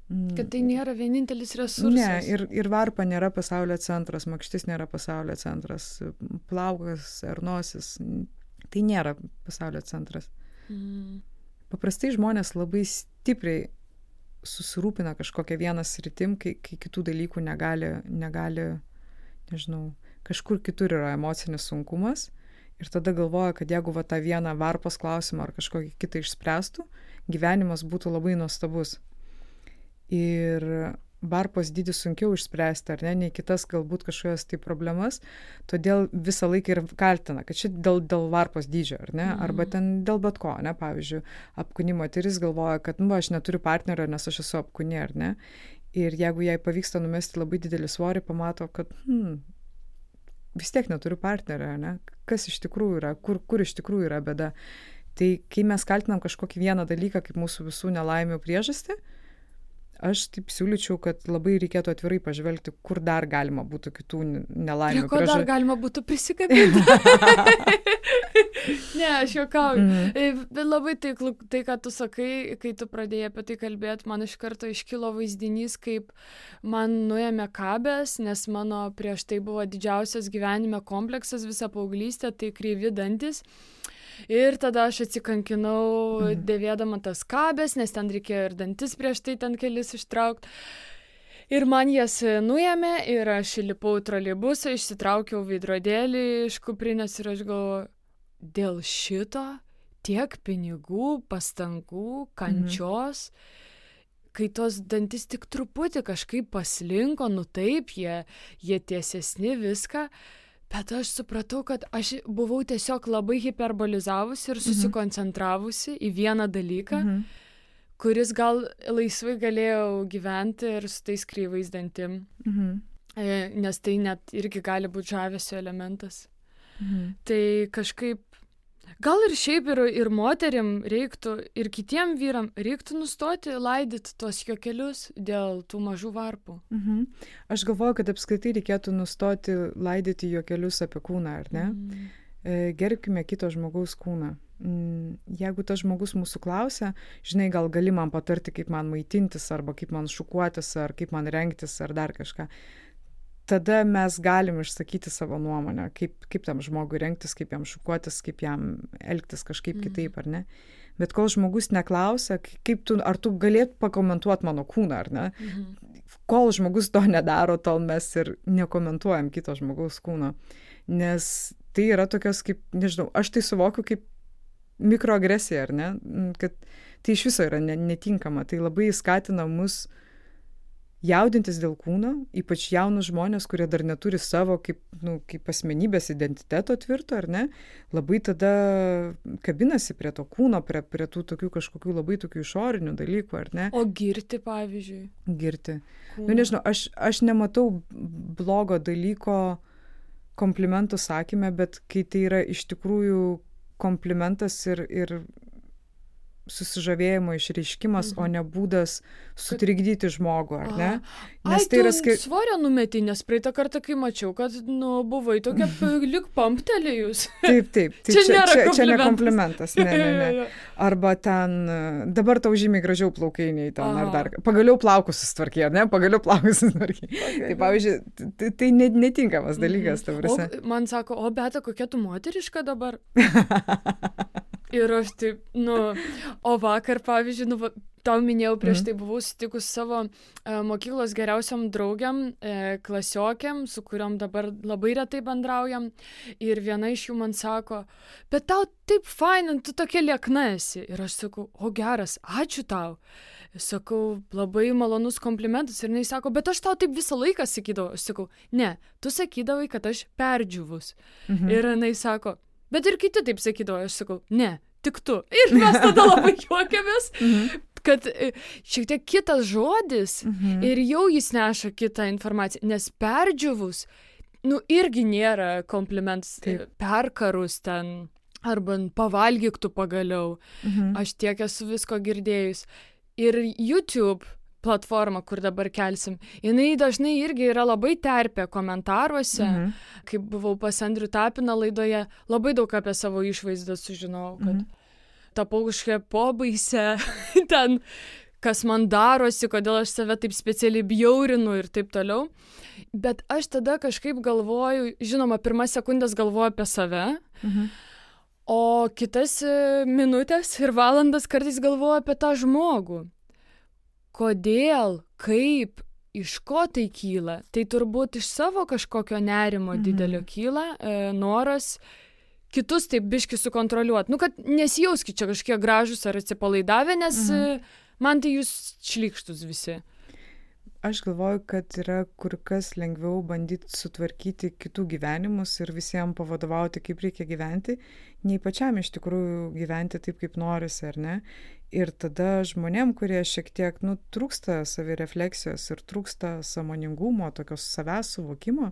Kad tai nėra vienintelis resursas. Ne, ir varpa nėra pasaulio centras, makštis nėra pasaulio centras, plaukas ar nosis, tai nėra pasaulio centras. Paprastai žmonės labai stipriai susirūpina kažkokią vieną sritim, kai kitų dalykų negali, nežinau, kažkur kitur yra emocinis sunkumas ir tada galvoja, kad jeigu tą vieną varpos klausimą ar kažkokį kitą išspręstų, gyvenimas būtų labai nuostabus. Ir varpos dydį sunkiau išspręsti, ar ne, nei kitas galbūt kažkokias tai problemas, todėl visą laiką ir kaltina, kad čia dėl varpos dydžio, ar ne, arba ten dėl bet ko, ne, pavyzdžiui, apkūni moteris galvoja, kad, aš neturiu partnerio, nes aš esu apkūni, ar ne, ir jeigu jai pavyksta numesti labai didelį svorį, pamato, kad, vis tiek neturiu partnerio, ne, kas iš tikrųjų yra, kur iš tikrųjų yra bėda. Tai kai mes kaltinam kažkokį vieną dalyką, kaip mūsų visų nelaimių priežastį, aš taip siūlyčiau, kad labai reikėtų atvirai pažvelgti, kur dar galima būtų kitų nelaimių. Prie ko dar galima būtų prisikabinti? Ne, aš juokauju. Bet labai tai, ką tu sakai, kai tu pradėjai apie tai kalbėti, man iš karto iškilo vaizdinys, kaip man nuėmė kabės, nes mano prieš tai buvo didžiausias gyvenime kompleksas visą paauglystę, tai kreivi dantis. Ir tada aš atsikankinau dėvėdama tas kabės, nes ten reikėjo ir dantis prieš tai ten kelis ištraukti. Ir man jas nuėmė ir aš įlipau į troleibusą, išsitraukiau veidrodėlį iš kuprinės ir aš galvoju, dėl šito tiek pinigų, pastangų, kančios, kai tos dantis tik truputį kažkaip paslinko, taip, jie tiesesni viską. Bet aš supratau, kad aš buvau tiesiog labai hiperbolizavusi ir susikoncentravusi į vieną dalyką, kuris gal laisvai galėjau gyventi ir su tais kreivais dantim. Nes tai net irgi gali būti žavesio elementas. Tai kažkaip, gal ir šiaip ir moterim reiktų, ir kitiem vyram reiktų nustoti laidyti tuos juokelius dėl tų mažų varpų. Aš galvoju, kad apskritai reikėtų nustoti laidyti juokelius apie kūną, ar ne? Gerbkime kito žmogaus kūną. Jeigu tas žmogus mūsų klausia, žinai, gal gali man patarti, kaip man maitintis, arba kaip man šukuotis, ar kaip man rengtis, ar dar kažką. Tada mes galim išsakyti savo nuomonę, kaip tam žmogui rengtis, kaip jam šukuotis, kaip jam elgtis kažkaip kitaip, ar ne. Bet kol žmogus neklausia, ar tu galėtum pakomentuoti mano kūną, ar ne. Kol žmogus to nedaro, tol mes ir nekomentuojam kito žmogaus kūno. Nes tai yra tokios kaip, nežinau, aš tai suvokiu kaip mikroagresija, ar ne, kad tai iš viso yra netinkama. Tai labai skatina mus jaudintis dėl kūno, ypač jaunus žmonės, kurie dar neturi savo kaip asmenybės identiteto tvirto, ar ne, labai tada kabinasi prie to kūno, prie tų tokių kažkokių labai tokių išorinių dalykų, ar ne. O girti, pavyzdžiui? Girti. Nežinau, aš nematau blogo dalyko komplimentų sakyme, bet kai tai yra iš tikrųjų komplimentas ir susižavėjimo išreiškimas, o ne būdas sutrikdyti žmogų, ar ne? Nes tai yra svorio numetį, nes praeitą kartą, kai mačiau, kad, buvai tokia lyg pamptelėjus. Taip. Tai čia ne komplimentas. Ne. Arba ten, dabar tau žymiai gražiau plaukainiai ten, ar dar. Pagaliau plaukus susitvarkė, ar ne? Pagaliau plaukus susitvarkė. Tai pavyzdžiui, tai netinkamas dalykas. Man sako, o Beta, kokia tu moteriška dabar? Ir aš taip, o vakar, pavyzdžiui, tau minėjau, prieš tai buvau sutikus savo mokyklos geriausiam draugiam, klasiokiam, su kuriom dabar labai retai bendraujam. Ir viena iš jų man sako, bet tau taip fain, tu tokia liekna esi. Ir aš sakau, o geras, ačiū tau. Sakau, labai malonus komplimentas. Ir jinai sako, bet aš tau taip visą laiką sakydavau. Aš sakau, ne, tu sakydavai, kad aš perdžiūvus. Ir jinai sako, bet ir kiti taip sakydavo, aš sakau, ne, tik tu. Ir mes tada labai juokiamės, kad šiek tiek kitas žodis ir jau jis neša kitą informaciją, nes perdžiūvus, irgi nėra komplimentas, perkarus ten, arba pavalgyk tu pagaliau. Aš tiek esu visko girdėjus. Ir YouTube platforma, kur dabar kelsim, jinai dažnai irgi yra labai terpė komentaruose. Kai buvau pas Andrių Tapiną laidoje, labai daug apie savo išvaizdą sužinojau, kad tapau kažkokia pobaisė, ten, kas man darosi, kodėl aš save taip specialiai bjaurinu ir taip toliau. Bet aš tada kažkaip galvoju, žinoma, pirmas sekundės galvoju apie save, o kitas minutės ir valandas kartais galvoju apie tą žmogų. Kodėl, kaip, iš ko tai kyla? Tai turbūt iš savo kažkokio nerimo didelio kyla, noras kitus taip biški sukontroliuoti. Nu, kad nesijauskit čia kažkiek gražus ar atsipalaidavę, nes man tai jūs šlykštus visi. Aš galvoju, kad yra kur kas lengviau bandyti sutvarkyti kitų gyvenimus ir visiems pavadovauti, kaip reikia gyventi, nei pačiam iš tikrųjų gyventi taip, kaip norisi, ar ne? Ir tada žmonėm, kurie šiek tiek, trūksta savirefleksijos ir trūksta sąmoningumo, tokios savęs suvokimo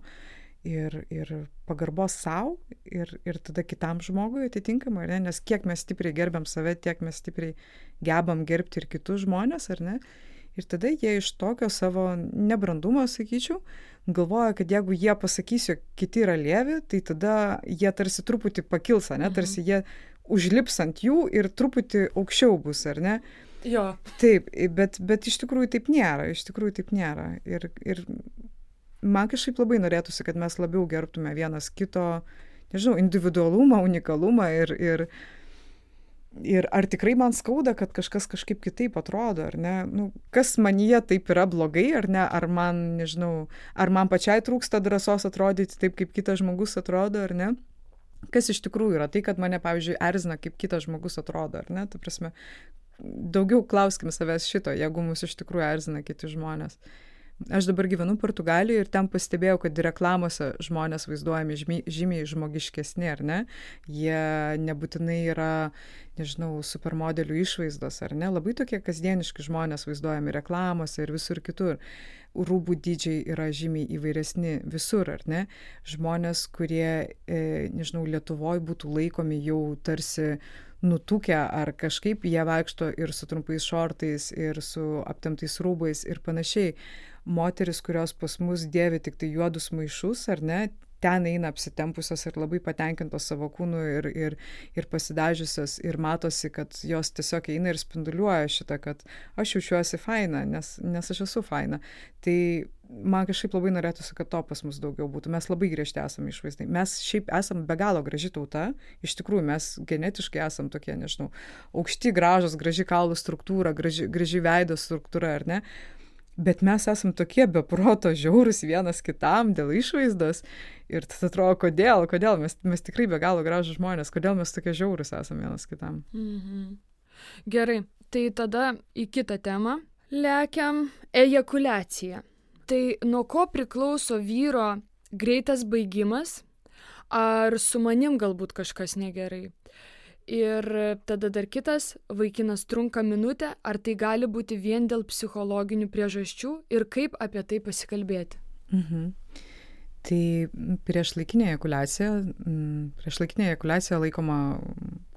ir pagarbos savo ir tada kitam žmogui atitinkamai, ar ne? Nes kiek mes stipriai gerbiam save, tiek mes stipriai gebam gerbti ir kitus žmonės, ar ne? Ir tada jie iš tokio savo nebrandumo, sakyčiau, galvoja, kad jeigu jie pasakys, jog kiti yra lievi, tai tada jie tarsi truputį pakils, ne? Tarsi jie užlips ant jų ir truputį aukščiau bus, ar ne? Jo. Taip, bet iš tikrųjų taip nėra. Ir man kažkaip labai norėtųsi, kad mes labiau gerbtume vienas kito, nežinau, individualumą, unikalumą ir ar tikrai man skauda, kad kažkas kažkaip kitaip atrodo, ar ne? Kas manyje taip yra blogai, ar ne? Ar man, nežinau, ar man pačiai trūksta drąsos atrodyti taip, kaip kitas žmogus atrodo, ar ne? Kas iš tikrųjų yra tai, kad mane, pavyzdžiui, erzina, kaip kitas žmogus atrodo, ar ne? Tai prasme, daugiau klauskim savęs šito, jeigu mus iš tikrųjų erzina kiti žmonės. Aš dabar gyvenu Portugalijoje ir ten pastebėjau, kad reklamose žmonės vaizduojami žymiai žmogiškesni, ar ne? Jie nebūtinai yra, nežinau, supermodelių išvaizdos, ar ne? Labai tokie kasdieniški žmonės vaizduojami reklamose ir visur kitur. Rūbų dydžiai yra žymiai įvairesni visur, ar ne? Žmonės, kurie, nežinau, Lietuvoje būtų laikomi jau tarsi nutukę ar kažkaip, jie vaikšto ir su trumpais šortais, ir su aptemptais rūbais ir panašiai. Moteris, kurios pas mus dėvi tik tai juodus maišus, ar ne, ten eina apsitempusios ir labai patenkintos savo kūnu ir pasidažiusios ir matosi, kad jos tiesiog eina ir spinduliuoja šitą, kad aš jaučiuosi faina, nes aš esu faina. Tai man kažkaip labai norėtųsi, kad to pas mus daugiau būtų. Mes labai griežti esame išvaizdai. Mes šiaip esame be galo graži tauta. Iš tikrųjų, mes genetiškai esame tokie, nežinau, aukšti, gražus, graži kaulų struktūra, graži veido struktūra, ar ne? Bet mes esam tokie be proto žiaurūs vienas kitam dėl išvaizdos ir tada atrodo, kodėl mes tikrai be galo gražūs žmonės, kodėl mes tokie žiaurūs esam vienas kitam. Gerai, tai tada į kitą temą lekiam ejakuliacija. Tai nuo ko priklauso vyro greitas baigimas, ar su manim galbūt kažkas negerai? Ir tada dar kitas, vaikinas trunka minutę, ar tai gali būti vien dėl psichologinių priežasčių ir kaip apie tai pasikalbėti? Tai priešlaikinė ejakuliacija laikoma,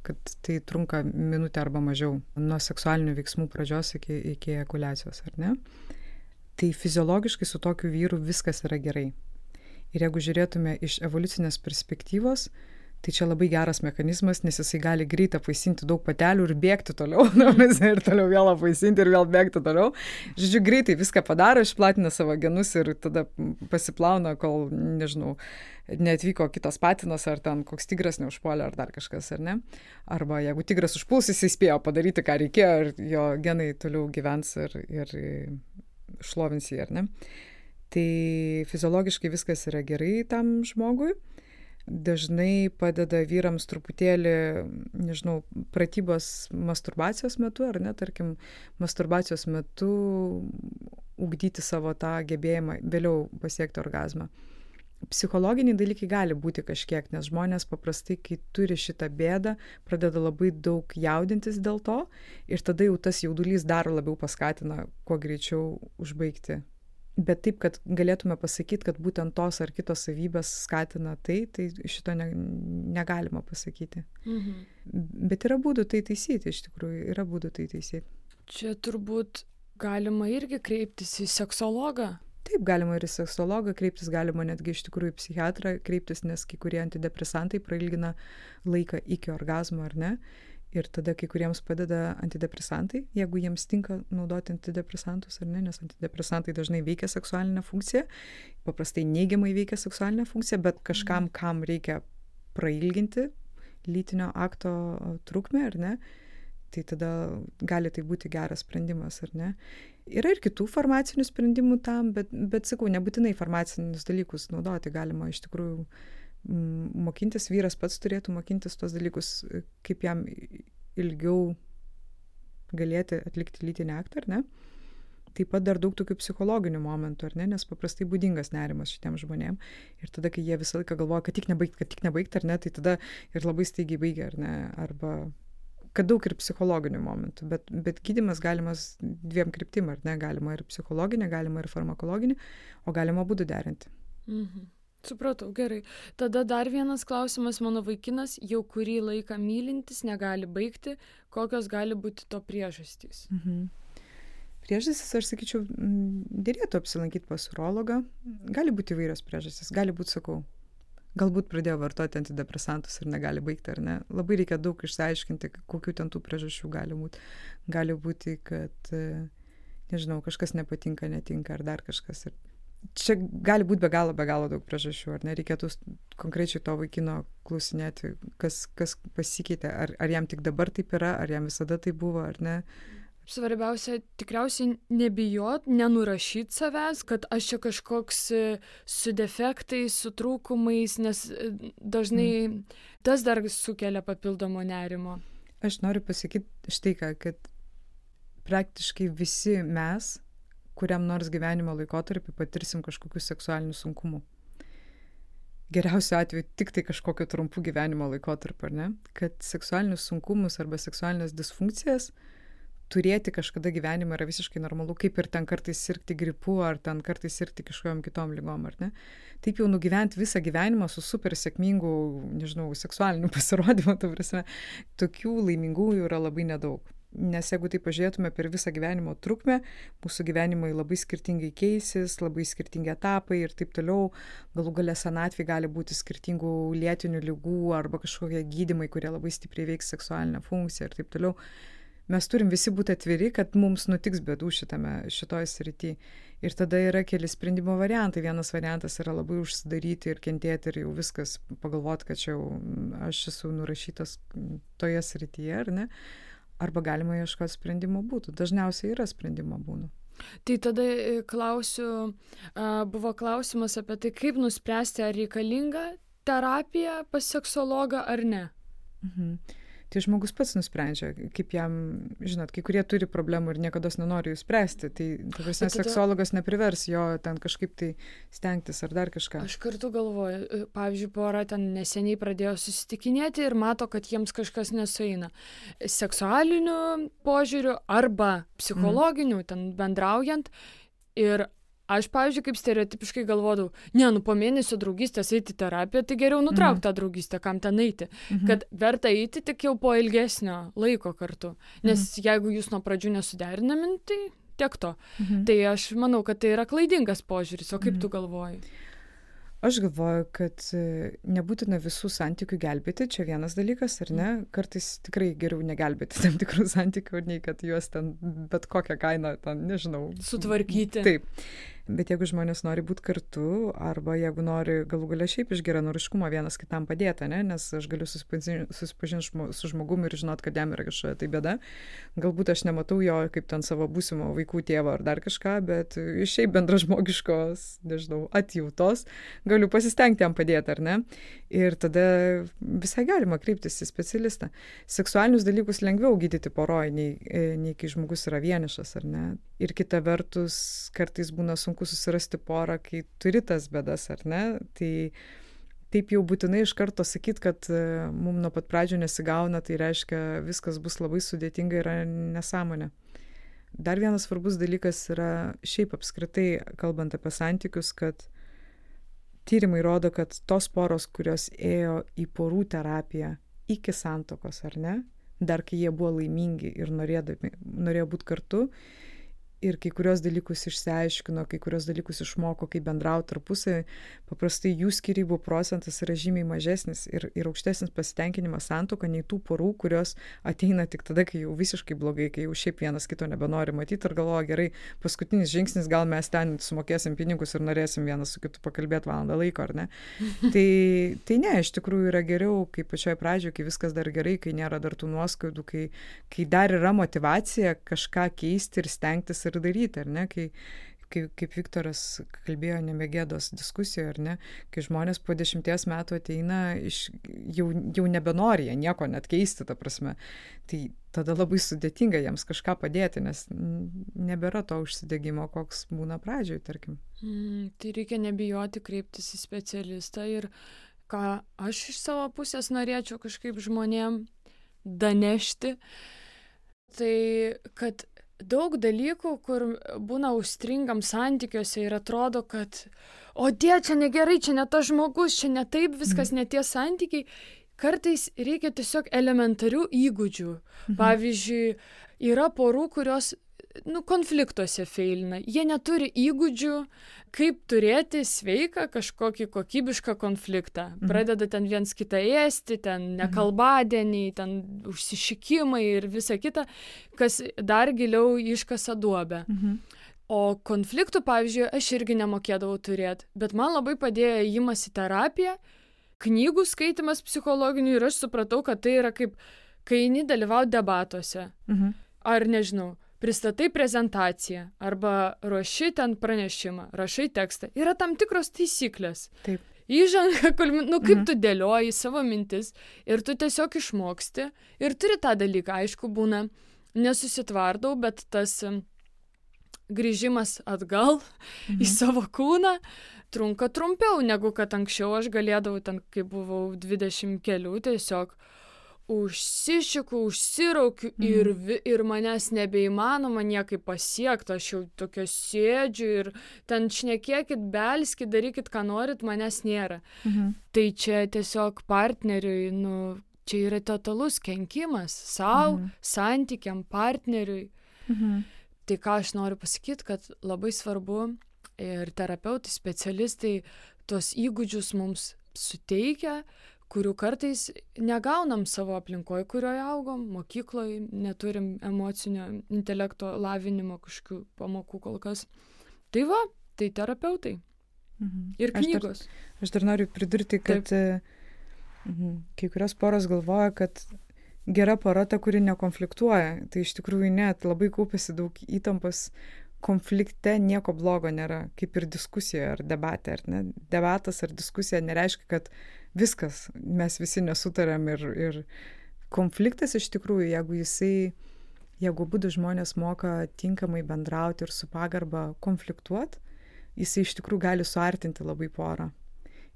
kad tai trunka minutę arba mažiau nuo seksualinių veiksmų pradžios iki ejakuliacijos, ar ne? Tai fiziologiškai su tokiu vyru viskas yra gerai. Ir jeigu žiūrėtume iš evoliucinės perspektyvos, tai čia labai geras mechanizmas, nes jisai gali greitai apvaisinti daug patelių ir bėgti toliau, ir toliau vėl apvaisinti ir vėl bėgti toliau. Žodžiu, greitai viską padaro, išplatina savo genus ir tada pasiplauna, kol, nežinau, neatvyko kitas patinas, ar ten koks tigras neužpuolė, ar dar kažkas, ar ne. Arba jeigu tigras užpuls, jisai spėjo padaryti, ką reikėjo, ir jo genai toliau gyvens ir šlovins jį, ar ne. Tai fiziologiškai viskas yra gerai tam žmogui. Dažnai padeda vyrams truputėlį, nežinau, pratybos masturbacijos metu, ar ne, tarkim, masturbacijos metu ugdyti savo tą gebėjimą vėliau pasiekti orgazmą. Psichologiniai dalykai gali būti kažkiek, nes žmonės paprastai, kai turi šitą bėdą, pradeda labai daug jaudintis dėl to ir tada jau tas jaudulys dar labiau paskatina kuo greičiau užbaigti. Bet taip, kad galėtume pasakyti, kad būtent tos ar kitos savybės skatina tai šito negalima pasakyti. Bet yra būdų tai taisyti, iš tikrųjų, yra būdų tai taisyti. Čia turbūt galima irgi kreiptis į seksologą. Taip, galima ir į seksologą kreiptis, galima netgi iš tikrųjų į psichiatrą kreiptis, nes kai kurie antidepresantai prailgina laiką iki orgazmo, ar ne? Ir tada kai kuriems padeda antidepresantai, jeigu jiems tinka naudoti antidepresantus, ar ne? Nes antidepresantai dažnai veikia seksualinę funkciją, paprastai neigiamai veikia seksualinę funkciją, bet kažkam, kam reikia prailginti lytinio akto trukmę, ar ne? Tai tada gali tai būti geras sprendimas, ar ne? Yra ir kitų farmacinių sprendimų tam, bet sakau, nebūtinai farmacinius dalykus naudoti galima iš tikrųjų mokintis, vyras pats turėtų mokintis tos dalykus, kaip jam ilgiau galėti atlikti lytinį aktą, ar ne? Taip pat dar daug tokių psichologinių momentų, ar ne? Nes paprastai būdingas nerimas šitiem žmonėm. Ir tada, kai jie visą laiką galvoja, kad tik nebaigti, ar ne, tai tada ir labai staigiai baigia, ar ne? Arba kad daug ir psichologinių momentų, bet gydymas galimas dviem kryptim, ar ne? Galima ir psichologinė, galima ir farmakologinė, o galima būdų derinti. Supratau, gerai. Tada dar vienas klausimas, mano vaikinas jau kurį laiką mylintis negali baigti, kokios gali būti to priežastys? Priežastys, aš sakyčiau, dėrėtų apsilankyti pas urologą. Gali būti įvairios priežastys, gali būti, sakau, galbūt pradėjo vartoti antidepresantus ir negali baigti, ar ne. Labai reikia daug išsiaiškinti, kokių ten tų priežasčių gali būti. Gali būti, kad, nežinau, kažkas nepatinka, netinka, ar dar kažkas. Ir čia gali būti be galo daug priežasčių, ar ne? Reikėtų konkrečiai to vaikino klausinėti, kas pasikeitė, ar jam tik dabar taip yra, ar jam visada tai buvo, ar ne. Svarbiausia, tikriausiai nebijot, nenurašyti savęs, kad aš čia kažkoks su defektais, su trūkumais, nes dažnai tas dar sukelia papildomo nerimo. Aš noriu pasakyti štai ką, kad praktiškai visi mes, kuriam nors gyvenimo laikotarpį patirsim kažkokių seksualinių sunkumų. Geriausiu atveju tik tai kažkokio trumpų gyvenimo laikotarpio, ar ne? Kad seksualinius sunkumus arba seksualinės disfunkcijas turėti kažkada gyvenime yra visiškai normalu, kaip ir ten kartais sirgti gripu, ar ten kartais sirgti kažkokiom kitom ligom, ar ne? Taip jau nugyventi visą gyvenimą su super sėkmingu, nežinau, seksualiniu pasirodymu, ta prasme, tokių laimingųjų yra labai nedaug. Nes jeigu tai pažiūrėtume per visą gyvenimo trukmę, mūsų gyvenimai labai skirtingai keisis, labai skirtingi etapai ir taip toliau, galų gale senatvė gali būti skirtingų lėtinių ligų arba kažkokie gydymai, kurie labai stipriai veiks seksualinę funkciją ir taip toliau. Mes turim visi būti atviri, kad mums nutiks bėdų šitoj srity. Ir tada yra keli sprendimo variantai. Vienas variantas yra labai užsidaryti ir kentėti ir jau viskas pagalvoti, kad čia jau aš esu nurašytas toje srityje, ar ne? Arba galima ieškoti sprendimo būdų. Dažniausiai yra sprendimo būdų. Tai tada klausiu, buvo klausimas apie tai, kaip nuspręsti, ar reikalinga terapija pas seksologą ar ne. Tai žmogus pats nusprendžia, kaip jam, žinot, kai kurie turi problemų ir niekados nenori jų spręsti, tai tada seksologas neprivers jo ten kažkaip tai stengtis ar dar kažką. Aš kartu galvoju, pavyzdžiui, pora ten neseniai pradėjo susitikinėti ir mato, kad jiems kažkas nesueina. Seksualiniu požiūriu arba psichologiniu, ten bendraujant. Ir aš, pavyzdžiui, kaip stereotipiškai galvodavau, po mėnesio draugystės eiti terapiją, tai geriau nutraukti tą draugystę, kam ten eiti. Kad verta eiti tik jau po ilgesnio laiko kartu. Nes jeigu jūs nuo pradžių nesuderinami, tai tiek to. Tai aš manau, kad tai yra klaidingas požiūris. O kaip tu galvoji? Aš galvoju, kad nebūtina visų santykių gelbėti, čia vienas dalykas, ar ne? Kartais tikrai geriau negelbėti tam tikrų santykių, nei kad juos ten bet kokią kainą, ten, nežinau, sutvarkyti. Taip. Bet jeigu žmonės nori būti kartu, arba jeigu nori galų gale šiaip iš geranoriškumo vienas kitam padėti, ne? Nes aš galiu susipažinti su žmogumi ir žinot, kad jam yra kažkokia tai bėda. Galbūt aš nematau jo kaip ten savo būsimo vaikų tėvo ar dar kažką, bet iš šiaip bendražmogiškos, nežinau, atjautos galiu pasistengti jam padėti, ar ne? Ir tada visai galima kreiptis į specialistą. Seksualinius dalykus lengviau gydyti poroj, nei kai žmogus yra vienišas, ar ne? Ir kita vertus, kartais būna sunku susirasti porą, kai turi tas bėdas, ar ne? Tai taip jau būtinai iš karto sakyti, kad mums nuo pat pradžių nesigauna, tai reiškia, viskas bus labai sudėtinga, yra nesąmonė. Dar vienas svarbus dalykas yra šiaip apskritai, kalbant apie santykius, kad tyrimai rodo, kad tos poros, kurios ėjo į porų terapiją iki santuokos, ar ne? Dar kai jie buvo laimingi ir norėjo būti kartu, ir kai kurios dalykus išsiaiškino, kai kurios dalykus išmoko, kaip bendrauti tarpusavį, paprastai jų skyrybų procentas yra žymiai mažesnis ir aukštesnis pasitenkinimas santuoka nei tų porų, kurios ateina tik tada, kai jau visiškai blogai, kai jau šiaip vienas kito nebenori matyti ir galvoja, gerai, paskutinis žingsnis, gal mes ten sumokėsim pinigus ir norėsim vienas su kitu pakalbėti valandą laiko, ar ne? Tai ne, iš tikrųjų yra geriau, kai pačioj pradžioje, kai viskas dar gerai, kai nėra dar tų nuoskaudų, kai dar yra motyvacija kažką keisti ir stengtis ir daryti, ar ne, kaip Viktoras kalbėjo Nemegėdos diskusijoje, ar ne, kai žmonės po 10 metų ateina, jau nebenori jie nieko net keisti, ta prasme, tai tada labai sudėtinga jiems kažką padėti, nes nebėra to užsidegimo, koks būna pradžioj, tarkim. Tai reikia nebijoti kreiptis į specialistą ir ką aš iš savo pusės norėčiau kažkaip žmonėm danešti, tai kad daug dalykų, kur būna užstringam santykiuose ir atrodo, kad čia negerai, čia ne tas žmogus, čia ne taip, viskas ne tie santykiai. Kartais reikia tiesiog elementarių įgūdžių. Pavyzdžiui, yra porų, kurios konfliktuose feilina. Jie neturi įgūdžių, kaip turėti sveiką kažkokį kokybišką konfliktą. Pradeda ten viens kitą ėsti, ten nekalbadieniai, ten užsišikimai ir visa kita, kas dar giliau iškasa duobę. O konfliktų, pavyzdžiui, aš irgi nemokėdavau turėti, bet man labai padėjo ėjimas į terapiją, knygų skaitimas psichologinių ir aš supratau, kad tai yra kaip, kai eini dalyvauti debatuose. Ar nežinau, pristatai prezentaciją arba ruoši ten pranešimą, rašai tekstą. Yra tam tikros taisyklės. Taip. Įžanga, kaip tu dėlioji savo mintis ir tu tiesiog išmoksti ir turi tą dalyką. Aišku, būna, nesusitvardau, bet tas grįžimas atgal į savo kūną trunka trumpiau, negu kad anksčiau aš galėdavau ten, kai buvau 20 kelių, tiesiog užsišiku, užsiraukiu ir manęs nebeįmanoma niekaip pasiekti, aš jau tokia sėdžiu ir ten šnekėkit, belskit, darykit, ką norit, manęs nėra. Tai čia tiesiog partneriui, čia yra totalus kenkimas sau, santykiam, partneriui. Tai ką aš noriu pasakyti, kad labai svarbu ir terapeutai, specialistai tuos įgūdžius mums suteikia, kurių kartais negaunam savo aplinkoje, kurioje augom, mokykloje, neturim emocinio intelekto lavinimo kažkokių pamokų kol kas. Tai tai terapeutai. Ir knygos. Aš dar noriu pridurti, kad kai kurios poros galvoja, kad gera pora ta, kuri nekonfliktuoja. Tai iš tikrųjų net labai kaupėsi daug įtampos. Konflikte nieko blogo nėra, kaip ir diskusijoje ar debate, ar ne? Debatas ar diskusija nereiškia, kad viskas, mes visi nesutarėm ir konfliktas iš tikrųjų, jeigu abudu žmonės moka tinkamai bendrauti ir su pagarba konfliktuoti, jisai iš tikrųjų gali suartinti labai porą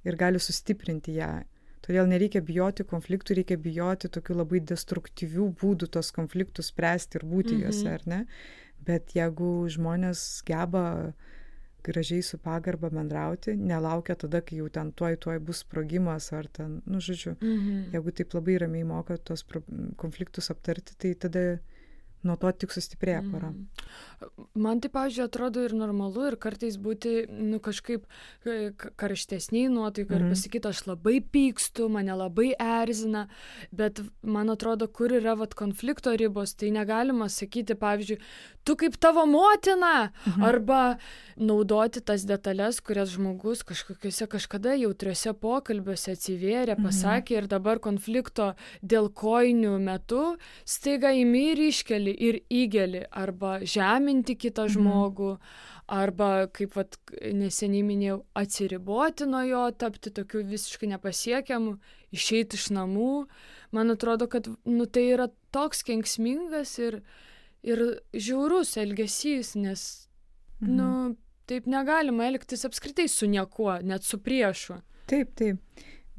ir gali sustiprinti ją. Todėl nereikia bijoti konfliktų, reikia bijoti tokių labai destruktyvių būdų tos konfliktus spręsti ir būti juose, ar ne? Bet jeigu žmonės geba gražiai su pagarba bendrauti, nelaukia tada, kai jau ten tuoj bus sprogimas ar ten, žodžiu, jeigu taip labai ramiai moka tos konfliktus aptarti, tai tada nuo to tik sustiprėja pora. Man tai, pavyzdžiui, atrodo ir normalu ir kartais būti kažkaip karštesniai nuotaikai ir pasakyti, aš labai pykstu, mane labai erzina, bet man atrodo, kur yra konflikto ribos, tai negalima sakyti, pavyzdžiui, tu kaip tavo motina, arba naudoti tas detalės, kurias žmogus kažkokiuose kažkada jautriuose pokalbiuose atsivėrė, pasakė ir dabar konflikto dėl kojinių metu staiga imi ir iškeli ir įgeli, arba žeminti kitą žmogų, arba, kaip neseniai minėjau, atsiriboti nuo jo, tapti tokiu visiškai nepasiekiamu, išeiti iš namų. Man atrodo, kad tai yra toks kenksmingas ir žiaurus elgesys, nes taip negalima elgtis apskritai su niekuo, net su priešu. Taip.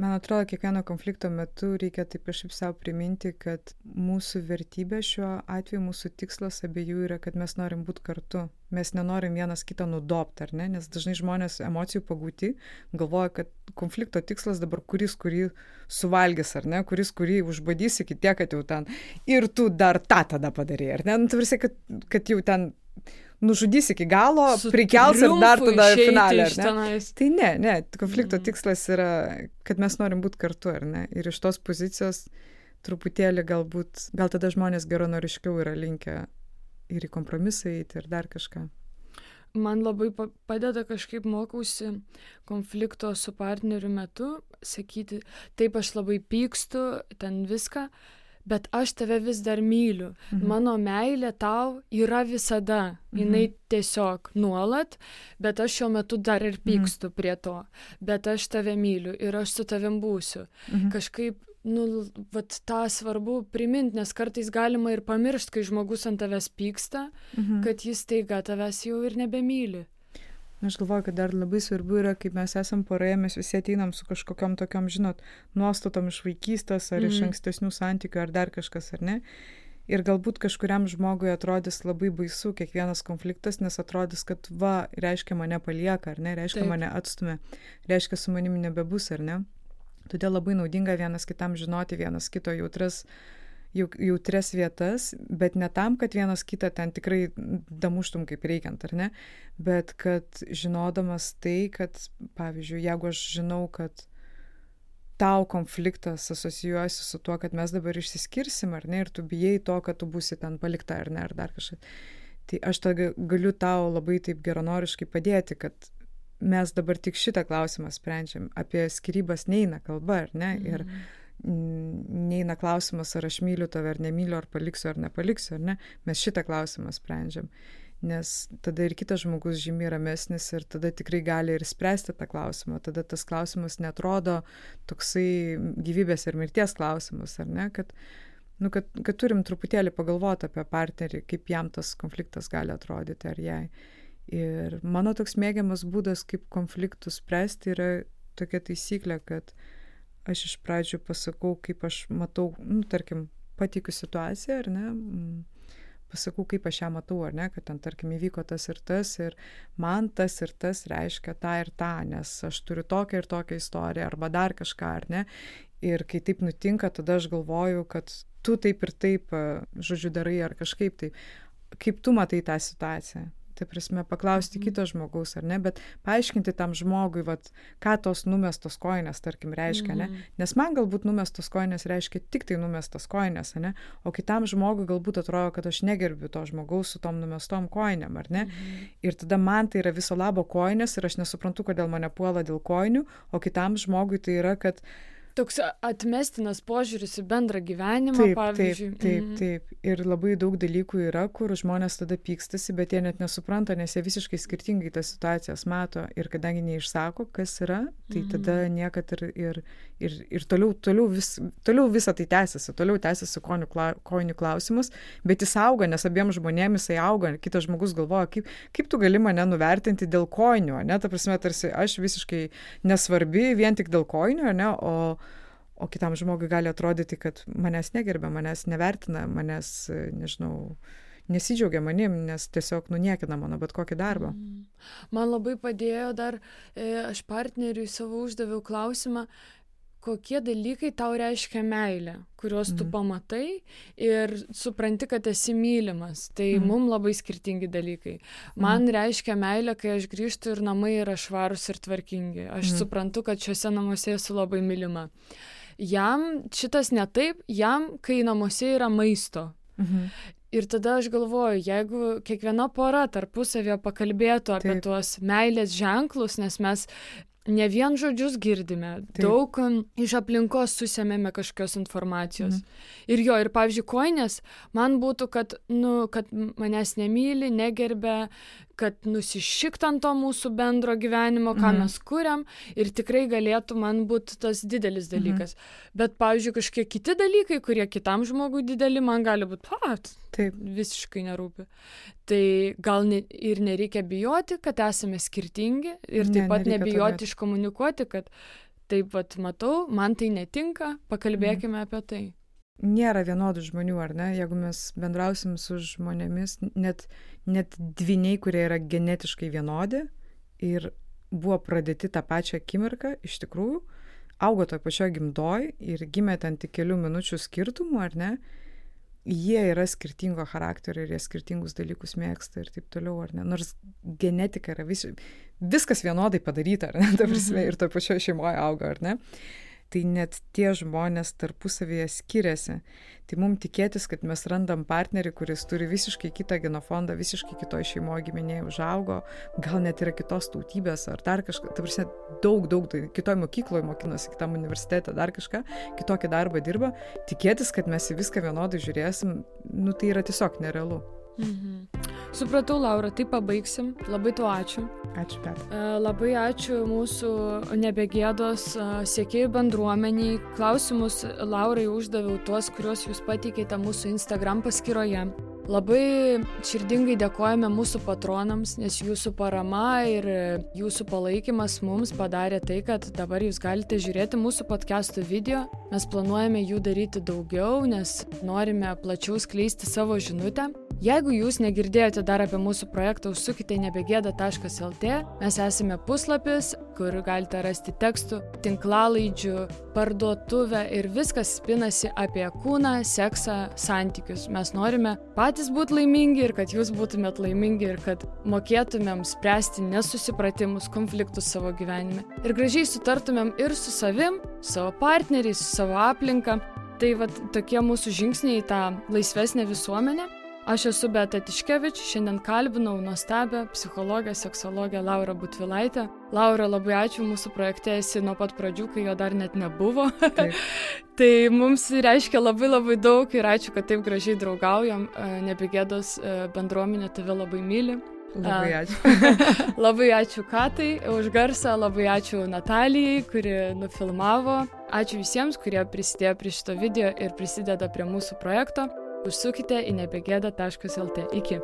Man atrodo, kiekvieno konflikto metu reikia taip kažkaip savo priminti, kad mūsų vertybė šiuo atveju, mūsų tikslas abiejų yra, kad mes norim būti kartu. Mes nenorim vienas kitą nudobti, ar ne? Nes dažnai žmonės emocijų pagauti galvoja, kad konflikto tikslas dabar kuris, kurį suvalgys, ar ne? Kuris, kurį užbadys iki tiek, kad jau ten ir tu dar tą tada padarei, ar ne? Tu varsi, kad jau ten nužudys iki galo, prikels ir dar tada finalę, ar ne? Tai ne, konflikto tikslas yra, kad mes norim būti kartu, ar ne? Ir iš tos pozicijos truputėlį gal tada žmonės geranoriškiau yra linkę ir į kompromisą eiti ir dar kažką. Man labai padeda kažkaip mokausi konflikto su partneriu metu, sakyti, taip aš labai pykstu, ten viską, bet aš tave vis dar myliu. Mano meilė tau yra visada, jinai tiesiog nuolat, bet aš šiuo metu dar ir pykstu prie to, bet aš tave myliu ir aš su tavim būsiu. Kažkaip vat tą svarbu priminti, nes kartais galima ir pamiršti, kai žmogus ant tavęs pyksta, kad jis staiga tavęs jau ir nebemyli. Aš galvoju, kad dar labai svarbu yra, kaip mes esam poroje, mes visi ateinam su kažkokiam tokiam, nuostatom iš vaikystės ar iš ankstesnių santykių ar dar kažkas, ar ne. Ir galbūt kažkuriam žmogui atrodys labai baisu kiekvienas konfliktas, nes atrodys, kad reiškia mane palieka, ar ne, reiškia mane atstumia, reiškia su manimi nebebus, ar ne. Todėl labai naudinga vienas kitam žinoti vienas kito jautres vietas, bet ne tam, kad vienas kitą ten tikrai damuštum kaip reikiant, ar ne, bet kad žinodamas tai, kad, pavyzdžiui, jeigu aš žinau, kad tau konfliktas asocijuojasi su tuo, kad mes dabar išsiskirsim, ar ne, ir tu bijai to, kad tu būsi ten palikta, ar ne, ar dar kažkas, tai aš galiu tau labai taip geranoriškai padėti, kad mes dabar tik šitą klausimą sprendžiam. Apie skyrybas neina kalba, ar ne? Ir neina klausimas, ar aš myliu tave, ar nemyliu, ar paliksiu, ar nepaliksiu, ar ne? Mes šitą klausimą sprendžiam. Nes tada ir kitas žmogus žymiai ramesnis ir tada tikrai gali ir spręsti tą klausimą. Tada tas klausimas netrodo toksai gyvybės ir mirties klausimas, ar ne? Kad turim truputėlį pagalvoti apie partnerį, kaip jam tas konfliktas gali atrodyti, ar jai. Ir mano toks mėgiamas būdas, kaip konfliktus spręsti, yra tokia taisyklė, kad aš iš pradžių pasakau, kaip aš matau, tarkim, pateikiu situaciją, ar ne, pasakau, kaip aš ją matau, ar ne, kad ten, tarkim, įvyko tas ir man tas ir tas reiškia tą ir tą, nes aš turiu tokią ir tokią istoriją, arba dar kažką, ar ne. Ir kai taip nutinka, tada aš galvoju, kad tu taip ir taip, žodžiu, darai, ar kažkaip taip. Kaip tu matai tą situaciją? Tai prasme, paklausti kito žmogaus, ar ne, bet paaiškinti tam žmogui, ką tos numestos kojinės, tarkim, reiškia, ne, nes man galbūt numestos kojinės reiškia tik tai numestos kojinės, ne, o kitam žmogui galbūt atrodo, kad aš negerbiu to žmogaus su tom numestom kojinėm, ar ne, ir tada man tai yra viso labo kojinės ir aš nesuprantu, kodėl mane puola dėl kojinių, o kitam žmogui tai yra, kad toks atmestinas požiūris į bendrą gyvenimą, pavyzdžiui. Taip. Ir labai daug dalykų yra, kur žmonės tada pykstasi, bet jie net nesupranta, nes jie visiškai skirtingai tas situacijas mato. Ir kadangi neišsako, kas yra, tai tada niekad ir toliau visą tai tęsiasi. Toliau tęsiasi kojinių klausimus, bet jis auga, nes abiems žmonėms jisai auga. Kitas žmogus galvoja, kaip tu gali mane nuvertinti dėl kojinių, ne? Ta prasme, tarsi aš visiškai nesvarbi vien tik dėl kojinių, ne? O kitam žmogui gali atrodyti, kad manęs negerbia, manęs nevertina, manęs, nežinau, nesidžiaugia manim, nes tiesiog niekina mano bet kokį darbą. Man labai padėjo dar, aš partneriui savo uždaviau klausimą, kokie dalykai tau reiškia meilę, kuriuos tu pamatai ir supranti, kad esi mylimas. Tai mums labai skirtingi dalykai. Man reiškia meilę, kai aš grįžtu ir namai yra švarūs ir tvarkingi. Aš suprantu, kad šiuose namuose esu labai mylima. Jam šitas ne taip, jam, kai namuose yra maisto. Ir tada aš galvoju, jeigu kiekviena pora tarpusavėje pakalbėtų apie tuos meilės ženklus, nes mes ne vien žodžius girdime, daug iš aplinkos susėmėme kažkokios informacijos. Ir pavyzdžiui, kojinės man būtų, kad manęs nemyli, negerbia, kad nusišikt ant to mūsų bendro gyvenimo, ką mes kuriam, ir tikrai galėtų man būti tas didelis dalykas. Bet, pavyzdžiui, kažkokie kiti dalykai, kurie kitam žmogui dideli, man gali būti, visiškai nerūpi. Tai gal ir nereikia bijoti, kad esame skirtingi, ir taip pat nebijoti iškomunikuoti, kad taip pat matau, man tai netinka, pakalbėkime apie tai. Nėra vienodų žmonių, ar ne? Jeigu mes bendrausim su žmonėmis, net dvyniai, kurie yra genetiškai vienodi ir buvo pradėti tą pačią akimirką, iš tikrųjų, augo toj pačioj gimdoj ir gimė ten tik kelių minučių skirtumų, ar ne? jie yra skirtingo charakterio ir jie skirtingus dalykus mėgsta ir taip toliau, ar ne? Nors genetika yra viskas vienodai padaryta, ar ne? Ta prasme, ir toje pačioje šeimoje auga, ar ne? Tai net tie žmonės tarpusavyje skiriasi. Tai mums tikėtis, kad mes randam partnerį, kuris turi visiškai kitą genofondą, visiškai kitoje šeimoje giminėje užaugo, gal net yra kitos tautybės ar dar kažką, ta prasme, daug, kitoje mokykloje mokinosi, kitam universitete dar kažką, kitokį darbą dirba, tikėtis, kad mes į viską vienodai žiūrėsim, tai yra tiesiog nerealu. Supratau, Laura, tai pabaigsim. Labai tau ačiū. Ačiū, Petra. Labai ačiū mūsų Nebegėdos sekėjų bendruomeniai. Klausimus Laurai uždaviau tuos, kuriuos jūs pateikėte mūsų Instagram paskyroje. Labai širdingai dėkojame mūsų patronams, nes jūsų parama ir jūsų palaikymas mums padarė tai, kad dabar jūs galite žiūrėti mūsų podcastų video. Mes planuojame jų daryti daugiau, nes norime plačiau skleisti savo žinutę. Jeigu jūs negirdėjote dar apie mūsų projektą, užsukite į nebegėda.lt. Mes esame puslapis, kur galite rasti tekstų, tinklalaidžių, parduotuvę ir viskas spinasi apie kūną, seksą, santykius. Mes norime patys būti laimingi ir kad jūs būtumėt laimingi ir kad mokėtumėm spręsti nesusipratimus, konfliktus savo gyvenime. Ir gražiai sutartumėm ir su savim, savo partneriais, su savo aplinka. Tai tokie mūsų žingsniai į tą laisvesnę visuomenę. Aš esu Beata Tiškevič, šiandien kalbinau nuostabią psichologę, seksologę Laurą Butvilaitę. Laura, labai ačiū, mūsų projekte esi nuo pat pradžių, kai jo dar net nebuvo. Tai mums reiškia labai daug ir ačiū, kad taip gražiai draugaujam. Nebegėdos bendruomenė tave labai myli. Labai ačiū. Labai ačiū Katai už garsą, labai ačiū Natalijai, kuri nufilmavo. Ačiū visiems, kurie prisidėjo prie šito video ir prisideda prie mūsų projekto. Užsukite į nebegėda.lt. Iki.